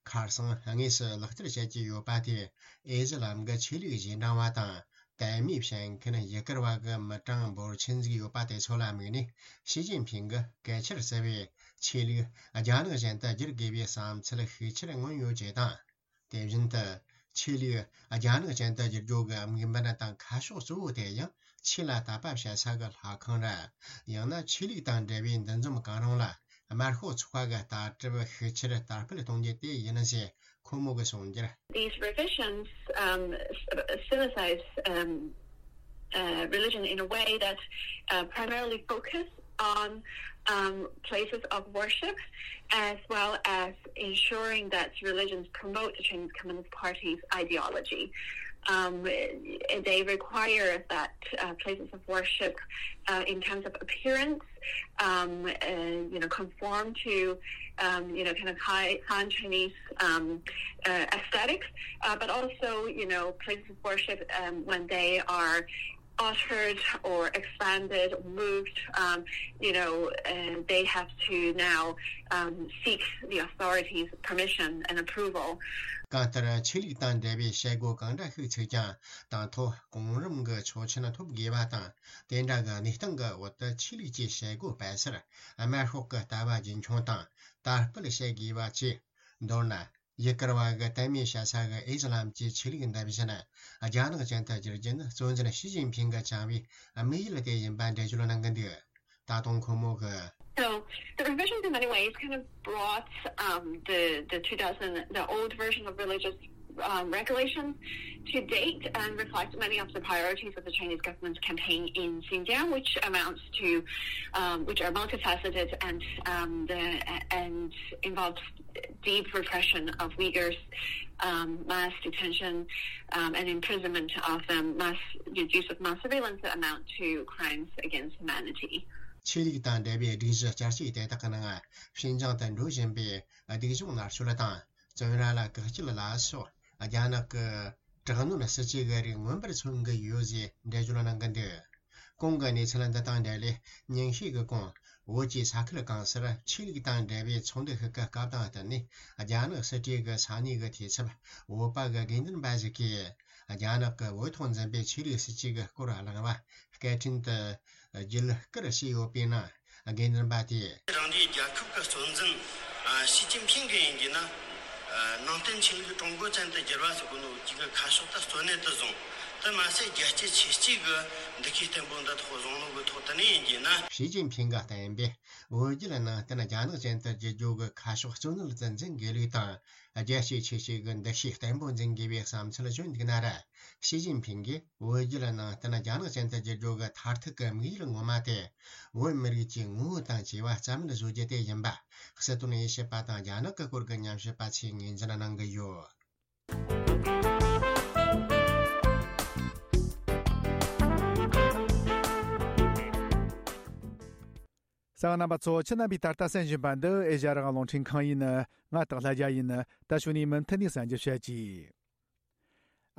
ཁ་སང་དངོས་སུ་ལག་བསྟར་བྱེད་ཀྱི་ཡོད་པ་དེ། ཨི་ཟི་ལམ་གྱི་ཆོས་ལུགས་རྗེས་འབྲང་བ་དང་དད་མོས་བྱེད་མཁན་ཡུ་གུར་བ་གི་མི་གྲངས་འབོར་ཆེན་ཟིག་ཡོད་པ་དེ་ཚོ་ལ་དམིགས་ནས། ཞི་ཅིན་ཕིང་གིས་གལ་ཆེར་བརྩི་བའི་ཆོས་ལུགས་རྒྱ་ནག་ཅན་དུ་བསྒྱུར་དགོས་པའི་བསམ་ཚུལ་ཤུགས་ཆེར་མངོན་ཡོད་ཅེས་དང་། དེ་བཞིན་དུ་ཆོས་ལུགས་རྒྱ་ནག་ཅན་དུ་བསྒྱུར་རྒྱུ་གི་དམིགས་འབེན་དང་ཁ་ཕྱོགས་གཙོ་བོ་དེ་ཡང་ཆོས་ལ་དད་པ་བྱེད་ས་གི་ལྷ་ཁང་ར། ཡང་ན་ཆོས་ལུགས་དང་འབྲེལ་བའི་འདུ་འཛོམས་གང་རུང་ལ་དམར་ཤོག་ཚོགས་པ་གི་ལྟ་གྲུབ་ཤུགས་ཆེར་དར་སྤེལ་གཏོང་རྒྱུ་དེ་ཡིན་ཞེས་ཁོང་མོ་གིས་གསུངས་རྒྱུར། These revisions, um, s- synthesize, um, uh, religion in a way that, uh, primarily focus on, um, places of worship, as well as ensuring that religions promote the Chinese Communist Party's ideology. Um, they require that, uh, places of worship, uh, in terms of appearance, um, uh, you know, conform to, um, you know, kind of high Han Chinese, um, uh, aesthetics, uh, but also, you know, places of worship, um, when they are altered or expanded, moved, um, you know, uh, they have to now, um, seek the authorities' permission and approval. གང་ལྟར་ཆོས་ལུགས་དང་འབྲེལ་བའི་བྱེད་སྒོ་གང་འདྲ་ཞིག་ཚུགས་ཀྱང་དང་ཐོག་གོང་རིམ་གྱི་ཆོག་མཆན་ཐོབ་དགོས་པ་དང་། དེ་འདྲ་གི་གནས་སྟངས་ཀྱི་འོག་ཏུ་ཆོས་ལུགས་ཀྱི་བྱེད་སྒོ་སྤེལ་སར་དམར་ཤོག་གི་ལྟ་བ་རྒྱུན་འཁྱོངས་དང་དར་སྤེལ་བྱེད་དགོས་པ་བཅས། མདོར་ན། ཡུ་གུར་བ་གི་དད་མོས་བྱེད་ས་གི་ཨི་སི་ལམ་གྱི་ཆོས་ལུགས་འདི་བཞིན་རྒྱ་ནག་ཅན་དུ་བསྒྱུར་རྒྱུ་ནི་གཙོ་འཛིན་ཞི་ཅིན་ཕིང་གིས་བཅངས་པའི་དམིགས་ཡུལ་དེ་ཡིན་པ་འགྲེལ་བརྗོད་གནང་གི་འདུག་ད་དུང་ཁོང་མོ་གིས། So the revisions in many ways kind of brought, um, the, the two thousand, the old version of religious, um, regulations to date and reflect many of the priorities of the Chinese government's campaign in Xinjiang, which amounts to, um, which are multifaceted and, um, the, and involves deep repression of Uyghurs, um, mass detention, um, and imprisonment of them, mass use of mass surveillance that amount to crimes against humanity. ཆོས་ལུགས་དང་འབྲེལ་བའི་སྒྲིག་གཞི་བསྐྱར་བཅོས་དེ་དག་གི་ནང་ཤིན་ཅང་དུ་འགྲོ་བཞིན་པའི་སྡུག་སྦྱོང་མནར་གཅོད་དང་བཙོན་ར་ལ་བཀག་སྐྱིལ་ལ་སོགས་རྒྱ་ནག་གི་དྲག་གནོན་སྲིད་ཇུས་ཀྱི་རིགས་མངོན་པར་མཚོན་གྱི་ཡོད་ཅེས་འགྲེལ་བརྗོད་གནང་གི་འདུག་གོང་གི་གནས་ཚུལ་འདི་དང་འབྲེལ་ནས་ཉིན་ཤས་ཀྱི་གོང་བོད་ཀྱི་ས་ཁུལ་གང་སར་ཆོས་ལུགས་དང་འབྲེལ་བའི་ཚོགས་འདུ་ཞིག་གི་སྐབས་དང་བསྟུན་ནས་རྒྱ་ནག་སྲིད་གྲོས་ཀྱི་ས་གནས་ཀྱི་འཐུས་ཚབ་བོད་པ་གི་དགེ་འདུན་པ་ཞིག་གིས་རྒྱ་ནག་གི་བོད་ཐོག་འཛིན་པའི་ཆོས་ལུགས་སྲིད་ཇུས་ཀྱི་སྐོར་གླེང་བ་སྐད་འཕྲིན་དུ་བརྒྱུད་བསྐུར་བྱས་ཡོད་པའི་ནང་། དགེ་འདུན་པ་དེས། རང་རེའི་རྒྱལ་ཁབ་ཀྱི་གཙོ་འཛིན་ཞི་ཅིན་ཕིང་གིས་ཡིན་གྱི་ན། ནང་བསྟན་ཆོས་ལུགས་ཀྲུང་གོ་ཅན་དུ་བསྒྱུར་བ་ཟེར་གོ་ནོ་གཅིག་གི་ཁ་ཕྱོགས་དེ་གཙོ་གནད་དུ་བཟུང་། དེ་མ་ཟད་རྒྱལ་གཅེས་ཆོས་གཅེས་ཀྱི་འདུ་ཤེས་བརྟན་པོ་འདི་ཐོག་བཟུང་ནོ་གི་ཐོག་དེ་ནས་ཡིན་གྱི་ན། ཞི་ཅིན་ཕིང་གིས་བསྟན་པའི་བོད་བརྒྱུད་ནང་བསྟན་རྒྱ་ནག་ཅན་དུ་བསྒྱུར་རྒྱུ་གི་ཁ་ཕྱོགས་གཙོ་གནད་དུ་འཛིན་དགོས་ལུགས་དང་། རྒྱལ་གཅེས་ཆོས་གཅེས་ཀྱི་འདུ་ཤེས་བརྟན་པོ་འཛིན་དགོས་པའི་བསམ་ཚུལ་བརྗོད་འདུག་ན་ར། ཞི་ཅིན་ཕིང་གིས་བོད་བརྒྱུད་ནང་བསྟན་རྒྱ་ནག་ཅན་དུ་བསྒྱུར་རྒྱུ་གི་མཐར་ཐུག་གི་དམིགས་ཡུལ་ངོ་མ་དེ། བོད་མི་རིགས་ཀྱི་ངོ་བོ་དང་བཅས་པ་རྩ་མེད་བཟོ་རྒྱུ་དེ་ཡིན་པ། སྲིད་དོན་དབྱེ་ཞིབ་པ་དང་རྒྱ་ནག་གི་སྐོར་གྱི་ཉམས་ཞིབ་པ་ཚོས་ངོས་འཛིན་གནང་གི་ཡོད། གསན་མཁན་རྣམ་པ་ཚོ། ཁྱེད་རྣམ་པས་ད་ལྟ་གསན་བཞིན་པ་འདི་ཨེ་ཤ་ཡ་རང་དབང་རླུང་འཕྲིན་ཁང་ཡིན། ང་སྟག་ལྷ་རྒྱལ་ཡིན། ད་གཞུག་ནས་མུ་མཐུད་ནས་གསན་རྒྱུ་བྱེད་ཀྱིས།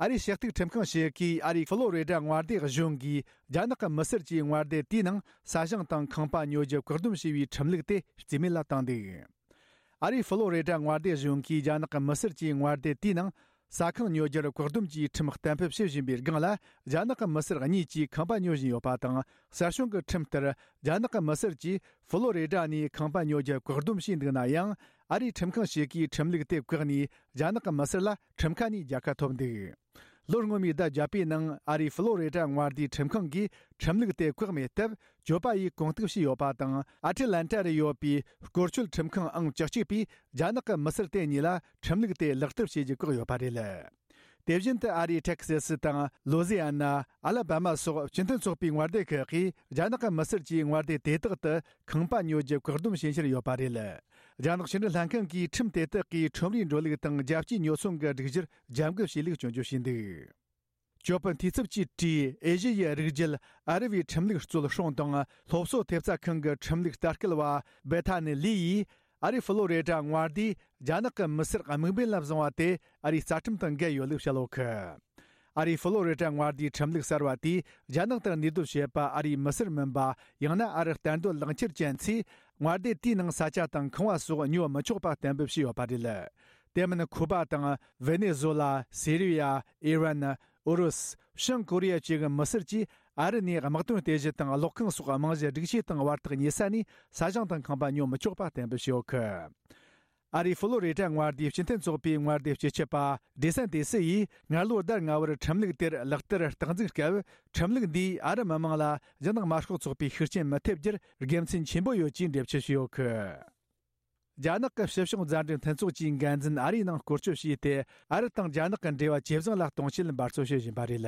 ཨ་རིའི་ཞི་གཏུག་ཁྲིམས་ཁང་ཞིག་གིས་ཨ་རིའི་ཧྥི་ལོ་རི་ཌ་མངའ་སྡེ་གཞུང་གིས་རྒྱ་ནག་གི་མི་སེར་གྱི་མངའ་སྡེ་དེའི་ནང་ས་ཞིང་དང་ཁང་པ་ཉོ་རྒྱུ་བཀག་སྡོམ་བྱས་པའི་ཁྲིམས་ལུགས་དེ་རྩིས་མེད་ལ་བཏང་འདུག་ཨ་རིའི་ཧྥི་ལོ་རི་ཌ་མངའ་སྡེ་གཞུང་གིས་རྒྱ་ནག་གི་མི་སེར་གྱི་མངའ་སྡེ་དེའི་ནང་ས་ཁང་ཉོ་རྒྱུར་བཀག་སྡོམ་གྱིས་ཁྲིམས་གཏན་འབེབས་བྱེད་བཞིན་པའི་སྒང་ལ། རྒྱ་ནག་གི་མི་སེར་གཉིས་ཀྱིས་ཁང་པ་ཉོ་བཞིན་ཡོད་པ་དང་། གསར་བྱུང་གི་ཁྲིམས་ལྟར། རྒྱ་ནག་གི་མི་སེར་གྱིས་ཧྥི་ལོ་རི་ཌ་ནས་ཁང་པ་ཉོ་རྒྱུ་བཀག་སྡོམ་བྱས་འདུག་ན་ཡང་། ཨ་རིའི་ཁྲིམས་ཁང་ཞིག་གིས་ཁྲིམས་ལུགས་དེ་བཀག་ནས། རྒྱ་ནག་གི་མི་སེར་ལ་ཁྲིམས་ཁ་ནས་རྒྱལ་ཁ་ཐོབ་འདུག་ལོ་སྔོན་མའི་ཟླ་བརྒྱད་པའི་ནང་ཨ་རིའི་ཧྥི་ལོ་རི་ཌ་མངའ་སྡེའི་ཁྲིམས་ཁང་གིས་ཁྲིམས་ལུགས་དེ་བཀག་མེད་སྟབས། གྱོད་པ་ཡིས་གོང་གཏུག་བྱས་ཡོད་པ་དང་། ཨ་ཊི་ལན་ཊ་རུ་ཡོད་པའི་སྐོར་སྐྱོད་ཁྲིམས་ཁང་ཨང་བཅུ་གཅིག་པས་རྒྱ་ནག་གི་མི་སེར་དེ་གཉིས་ལ་ཁྲིམས་ལུགས་དེ་ལག་བསྟར་བྱེད་རྒྱུ་བཀག་ཡོད་པ་རེད། དེ་བཞིན་དུ་ཨ་རིའི་ཏེག་སེ་སི་དང་ལོ་ཟི་ཨ་ན། ཨ་ལ་བྷ་མ་སོགས་སྤྱི་མཐུན་ཚོགས་པའི་མངའ་སྡེ་ཁག་གིས་རྒྱ་ནག་གི་མི་སེར་གྱི་མངའ་སྡེ་དེ་དག་ཏུ་ཁང་པ་ཉོ་རྒྱུ་བཀག་སྡོམ་བྱེད་འཆར་ཡོད་པ་རེད། རྒྱ་ནག་ཕྱི་འབྲེལ་ལྷན་ཁང་གིས་ཁྲིམས་དེ་དག་གིས་ཁྲོམ་རའི་འགྲོ་ལུགས་དང་རྒྱལ་སྤྱིའི་ཉོ་ཚོང་གི་སྒྲིག་གཞིར་རྒྱབ་འགལ་བྱས་ལུགས་སྐྱོན་བརྗོད་བྱས་འདུག་གྱོད་དཔོན་འཐུས་ཚབ་ཀྱིས་བྲིས། ཨེ་ཤི་ཡའི་རིགས་རྒྱུད་ཨ་རི་བའི་ཁྲིམས་ལུགས་གཙོལ་སྲུང་དང་སློབ་གསོ་ཐེབས་རྩ་ཁང་གི་ཁྲིམས་ལུགས་ལྟ་སྐུལ་བ་སྦེ་ཐ་ནི་ལི་ཡིས། ཨ་རིའི་ཧྥི་ལོ་རི་ཌ་མངའ་སྡེས་རྒྱ་ནག་གི་མི་སེར་དམིགས་འབེན་ལ་བཟུང་བ་དེ་ཨ་རིའི་རྩ་ཁྲིམས་དང་འགལ་ཡོད་ལུགས་བཤད་ཡོད་གི། ཨ་རིའི་ཧྥི་ལོ་རི་ཌ་མངའ་སྡེའི་ཁྲིམས་ལུགས་གསར་བ་དེས་རྒྱ་ནག་ཏུ་གནས་སྡོད་བྱེད་པ་ཨ་རིའི་མི་སེར་མིན་པ། ཡང་ན་ཨ་རི་གཏན་སྡོད་ལག་འཁྱེར་ཅན་ཚོས་མངའ་སྡེ་དེའི་ནང་ས་ཆ་དང་ཁང་བ་སོགས་ཉོ་མི་ཆོག་པ་གཏན་འབེབས་བྱས་ཡོད་པ་རེད། དེ་མིན་ཁུ་པ་དང་ཝེ་ནེ་ཛོ་ལ། སི་རི་ཡ། ཨི་རན། ཨུ་རུ་སུ། བྱང་ཀོ་རི་ཡ་བཅས་ཀྱི་མི་སེར་གྱིས་ཨ་རི་ནས་དམག་དོན་རྟེན་གཞི་དང་གློག་ཁང་སོགས་རྨང་གཞི་སྒྲིག་ཆས་དང་བར་ཐག་ཉེ་ས་ནས་ས་ཞིང་དང་ཁང་པ་ཉོ་མི་ཆོག་པ་གཏན་འབེབས་བྱས་ཡོད་གི། ཨ་རིའི་ཧྥི་ལོ་རི་ཌ་མངའ་སྡེའི་སྤྱི་མཐུན་ཚོགས་པའི་མངའ་སྡེ་སྤྱི་ཁྱབ་པ་ཌི་སན་ཏི་སི་ཡིས་སྔ་ལོ་ཟླ་ལྔ་བར་ཁྲིམས་ལུགས་དེར་ལག་བསྟར་རྟག་འཛུགས་སྐབས། ཁྲིམས་ལུགས་འདིས་ཨ་རི་མི་མང་ལ་རྒྱ་ནག་དམར་ཤོག་ཚོགས་པའི་ཤུགས་རྐྱེན་མི་ཐེབས་རྒྱུར་དགེ་མཚན་ཆེན་པོ་ཡོད་ཅེས་འགྲེལ་བརྗོད་བྱས་ཡོད་གི། རྒྱ་ནག་གི་ཕྱི་ཕྱོགས་མཛའ་འབྲེལ་མཐུན་ཚོགས་ཀྱི་འགན་འཛིན་ཨ་རིའི་ནང་སྐོར་སྐྱོད་བྱས་ཏེ། ཨ་རི་དང་རྒྱ་ནག་གི་འབྲེལ་བ་ཇེ་བཟང་ལ་གཏོང་ཆེད་འབད་རྩོལ་བྱེད་བཞིན་པ་རེད།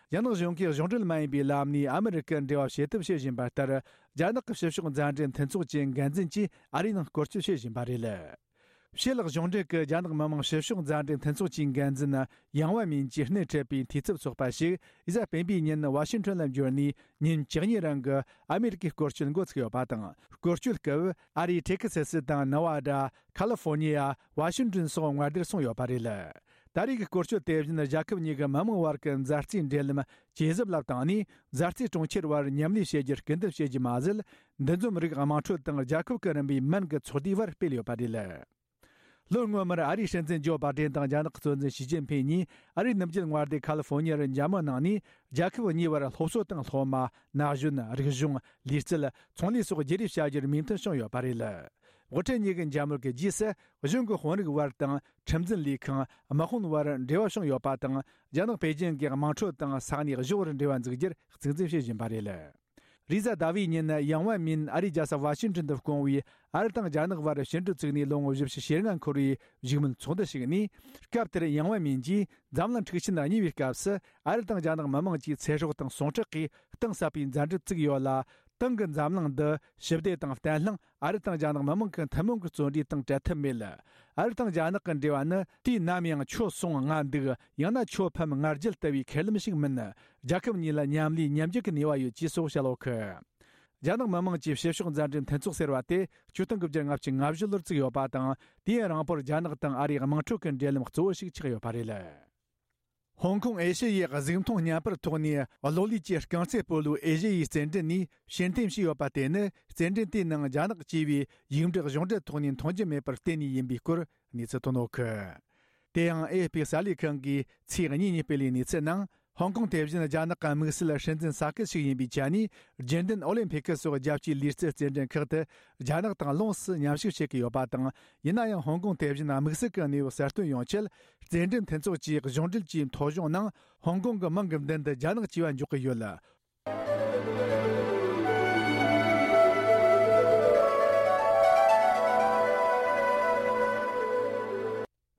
རྒྱ་ནག་གཞུང་གིས་གཞུང་འབྲེལ་མ་ཡིན་པའི་ལམ་ནས་ཨ་མི་རི་ཀར་འབྲེལ་བ་བྱེད་ཐབས་བྱེད་བཞིན་པ་ལྟར། རྒྱ་ནག་གི་ཕྱི་ཕྱོགས་མཛའ་འབྲེལ་མཐུན་ཚོགས་ཀྱི་འགན་འཛིན་གྱིས་ཨ་རིའི་ནང་སྐོར་སྐྱོད་བྱེད་བཞིན་པ་རེད། ཕྱི་ལོགས་གཞུང་འབྲེལ་གྱི་རྒྱ་ནག་མི་དམངས་ཕྱི་ཕྱོགས་མཛའ་འབྲེལ་མཐུན་ཚོགས་ཀྱི་འགན་འཛིན་ཡང་ཝེ་མིན་གྱིས་སྣེ་ཁྲིད་པའི་འཐུས་ཚབ་ཚོགས་པ་ཞིག་གཟའ་སྤེན་པའི་ཉིན་ཝ་ཤིང་ཊོན་ལ་འབྱོར་ནས། ཉིན་བཅུ་གཉིས་རིང་གི་ཨ་མེ་རི་ཀའི་སྐོར་སྐྱོད་འགོ་ཚུགས་ཡོད་པ་དང་། སྐོར་སྐྱོད་སྐབས་ཨ་རིའི་ཏེག་སེ་སི་དང་ནེ་ཝ་ཌ། ཁ་ལི་ཧྥོ་ནི་ཡ། ཝ་ཤིང་ཊོན་སོགས་མངའ་སྡེར་སོང་ཡོད་པ་རེད། ད་རེས་ཀྱི་སྐོར་སྐྱོད་དེ་བཞིན་རྒྱལ་ཁབ་གཉིས་ཀྱི་མི་དམངས་བར་གྱི་མཛའ་བརྩེའི་འབྲེལ་ལམ་ཇེ་ཟབ་ལ་བཏང་ནས། མཛའ་བརྩེའི་གྲོང་ཁྱེར་བར་མཉམ་ལས་བྱེད་རྒྱུར་སྐུལ་འདེད་བྱེད་རྒྱུ་མ་ཟད། འདུ་འཛོམས་རིགས་དམངས་ཁྲོད་དང་རྒྱལ་ཁབ་ཀྱི་རིམ་པའི་མོན་གྱི་ཚོགས་སྡེའི་བར་སྤེལ་ཡོད་པ་རེད། ལོ་སྔོན་མར་ཨ་རིའི་སྲིད་འཛིན་ཇོ་བྷ་ཌེན་དང་རྒྱ་ནག་གི་གཙོ་འཛིན་ཞི་ཅིན་ཕིན་གཉིས་ཨ་རིའི་ནུབ་རྒྱུད་མངའ་སྡེ་ཁ་ལི་ཧྥོ་ནི་ཡར་མཇལ་མོལ་གནང་ནས། རྒྱལ་ཁབ་གཉིས་བར་སློབ་གསོ་དང་སློབ་མ། ན་གཞོན། རིག་གཞུང་། ལུས་རྩལ། ཚོང་ལས་སོགས་བརྗེ་རེས་བྱ་རྒྱུར་མོས་མཐུན་བྱུང་ཡོད་པ་རེད། དབུ་ཁྲིད་གཉིས་ཀྱི་མཇལ་མོལ་གྱི་རྗེས་སུ། གཞུང་གི་དཔོན་རིགས་བར་དང་། ཁྲིམས་འཛིན་ལས་ཁང་། དམག་དཔོན་བར་འབྲེལ་བ་བྱུང་ཡོད་པ་དང་། རྒྱ་ནག་པེ་ཅིང་གི་དམངས་ཁྲོད་དང་ས་གནས་གཞུང་བར་འབྲེལ་བ་འཛུགས་རྒྱུར་གཙིགས་འཛིན་བྱེད་བཞིན་པ་རེད། རེས་གཟའ་ཟླ་བའི་ཉིན་ཡང་ཝེ་མིན་ཨ་རིའི་རྒྱལ་ས་ཝ་ཤིང་ཊོན་དུ་བསྐོང་བའི་ཨ་རི་དང་རྒྱ་ནག་བར་ཕྱི་འབྲེལ་བཙུགས་ནས་ལོ་ངོ་བཞི་བཅུ་ཞེ་ལྔ་འཁོར་བའི་བཞུགས་མོལ་ཚོགས་འདུ་ཞིག་ནས། སྐབས་དེར་ཡང་ཝེ་མིན་གྱིས་འཛམ་གླིང་འཁྲུག་ཆེན་གཉིས་པའི་སྐབས་སུ་ཨ་རི་དང་རྒྱ་ནག་མི་དམངས་ཀྱི་ཚེ་སྲོག་དང་ཟུངས་ཁྲག་གིས་གཏིང་ཟབ་པའི་མཛའ་འབྲེལ་བཙུགས་ཡོད་ལ། ཏང་གིས་འཛམ་གླིང་འདི་ཞི་བདེ་དང་བརྟན་ལྷིང་། ཨ་རི་དང་རྒྱ་ནག་མི་དམངས་ཀྱི་ཐུན་མོང་གི་བརྩོན་འགྲུས་དང་བྲལ་ཐབས་མེད། ཨ་རི་དང་རྒྱ་ནག་གི་འབྲེལ་བ་ནི་དུས་ནམ་ཡང་ཁྱོད་སོང་ང་འདུག་ཡང་ན་ཁྱོད་ཕམ་ང་རྒྱལ་ལྟ་བུའི་ཁས་ལེན་ཞིག་མིན། རྒྱལ་ཁབ་གཉིས་ལ་མཉམ་ལས་མཉམ་རྒྱུག་གི་ནུས་པ་ཡོད་ཅེས་སོགས་བཤད་ཡོད་གི། རྒྱ་ནག་མི་དམངས་ཀྱི་ཕྱི་ཕྱོགས་མཛའ་འབྲེལ་མཐུན་ཚོགས་ཟེར་བ་དེ་ཆིག་སྟོང་དགུ་བརྒྱ་ལྔ་བཅུ་ང་བཞི་ལོར་བཙུགས་ཡོད་པ་དང་། དུས་ཡུན་རིང་པོར་རྒྱ་ནག་དང་ཨ་རིའི་དམངས་ཁྲོད་ཀྱི་འབྲེལ་ལམ་གཙོ་བོ་ཞིག་ཆགས་ཡོད་པ་རེད། ཧོང་ཀོང་ཨེ་ཤེ་ཡའི་གཟུགས་མཐོང་བརྙན་པར་ཐོག་ནས་གློག་ཀླད་ཀྱི་རྐང་རྩེད་སྤོ་ལོའི་ཨེ་ཤེ་ཡའི་རྩེད་འགྲན་ནས་ཕྱིར་འཐེན་བྱས་ཡོད་པ་དེ་ནི། རྩེད་འགྲན་དེའི་ནང་རྒྱ་ནག་ཅེས་པའི་ཡིག་འབྲུ་གཞུང་འབྲེལ་ཐོག་ནས་མཐོང་རྒྱུ་མེད་པར་བརྟེན་ནས་ཡིན་པའི་སྐོར་གནས་ཚུལ་ཐོན་ཡོད་གི། དེ་ཡང་ཨེ་ཨེཕ་པི་གསར་ལས་ཁང་གིས་ཚེས་གཉིས་ཉིན་སྤེལ་བའི་གནས་ཚུལ་ནང་། ཧོང་ཀོང་དེ་བཞིན་རྒྱ་ནག་གི་དམིགས་བསལ་སྲིད་འཛིན་ས་ཁུལ་ཞིག་ཡིན་པའི་ཆ་ནས། རྒྱུན་ལྡན་ཨོ་ལིམ་ཕི་ཀི་སོགས་རྒྱལ་སྤྱིའི་ལུས་རྩལ་རྩེད་འགྲན་ཁག་ཏུ་རྒྱ་ནག་དང་ལོངས་སུ་མཉམ་ཞུགས་བྱེད་ཀྱི་ཡོད་པ་དང་། ཡིན་ན་ཡང་ཧོང་ཀོང་དེ་བཞིན་དམིགས་བསལ་གྱི་གནས་བབ་གསལ་སྟོན་ཡོང་ཆེད། རྩེད་འགྲན་མཐུན་ཚོགས་ཀྱི་གཞུང་འབྲེལ་གྱི་ཐོ་གཞུང་ནང་ཧོང་ཀོང་གི་མིང་གི་མདུན་དུ་རྒྱ་ནག་ཅེས་པ་འཇོག་གི་ཡོད།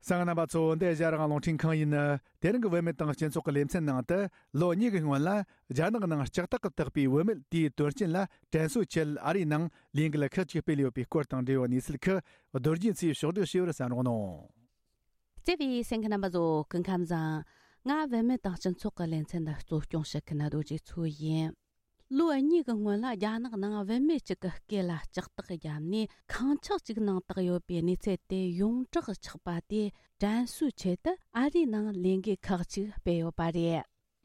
གསན་མཁན་རྣམ་པ་ཚོ། འདི་ཨེ་ཤ་ཡ་རང་དབང་རླུང་འཕྲིན་ཁང་ཡིན། དེ་རིང་གི་བུད་མེད་དང་སྤྱི་ཚོགས་ཀྱི་ལེ་ཚན་ནང་དུ། ལོ་གཉིས་ཀྱི་སྔོན་ལ་རྒྱ་ནག་ནང་ལྕགས་ཐག་གིས་བཏགས་པའི་བུད་མེད་དེའི་དོན་རྐྱེན་ལ་དྲན་གསོའི་ཆེད་ཨ་རིའི་ནང་ལས་འགུལ་ཁག་ཅིག་སྤེལ་ཡོད་པའི་སྐོར་དང་འབྲེལ་བའི་གནས་ཚུལ་ཁག་རྡོ་རྗེ་མཚོས་ཕྱོགས་བསྒྲིགས་བྱས་པར་གསན་རོགས་གནང་། བརྩེ་བའི་གསན་མཁན་རྣམ་པ་ཚོ། སྐུ་ཁམས་བཟང་། ང་བུད་མེད་དང་སྤྱི་ཚོགས་ཀྱི་ལེ་ཚན་འདི་གཙོ་སྐྱོང་བྱེད་མཁན་རྡོ་རྗེ་མཚོ་ཡིན། ལོ་གཉིས་ཀྱི་སྔོན་ལ་རྒྱ་ནག་ནང་བུད་མེད་ཅིག་གི་སྐེ་ལ་ལྕགས་ཐག་བརྒྱབ་ནས་ཁང་ཆག་ཅིག་ནང་བཏགས་ཡོད་པའི་གནས་ཚུལ་དེ་ཡོངས་གྲགས་ཆགས་པ་དེ་དྲན་གསོའི་ཆེད་དུ་ཨ་རིའི་ནང་ལས་འགུལ་ཁག་ཅིག་སྤེལ་ཡོད་པ་རེད།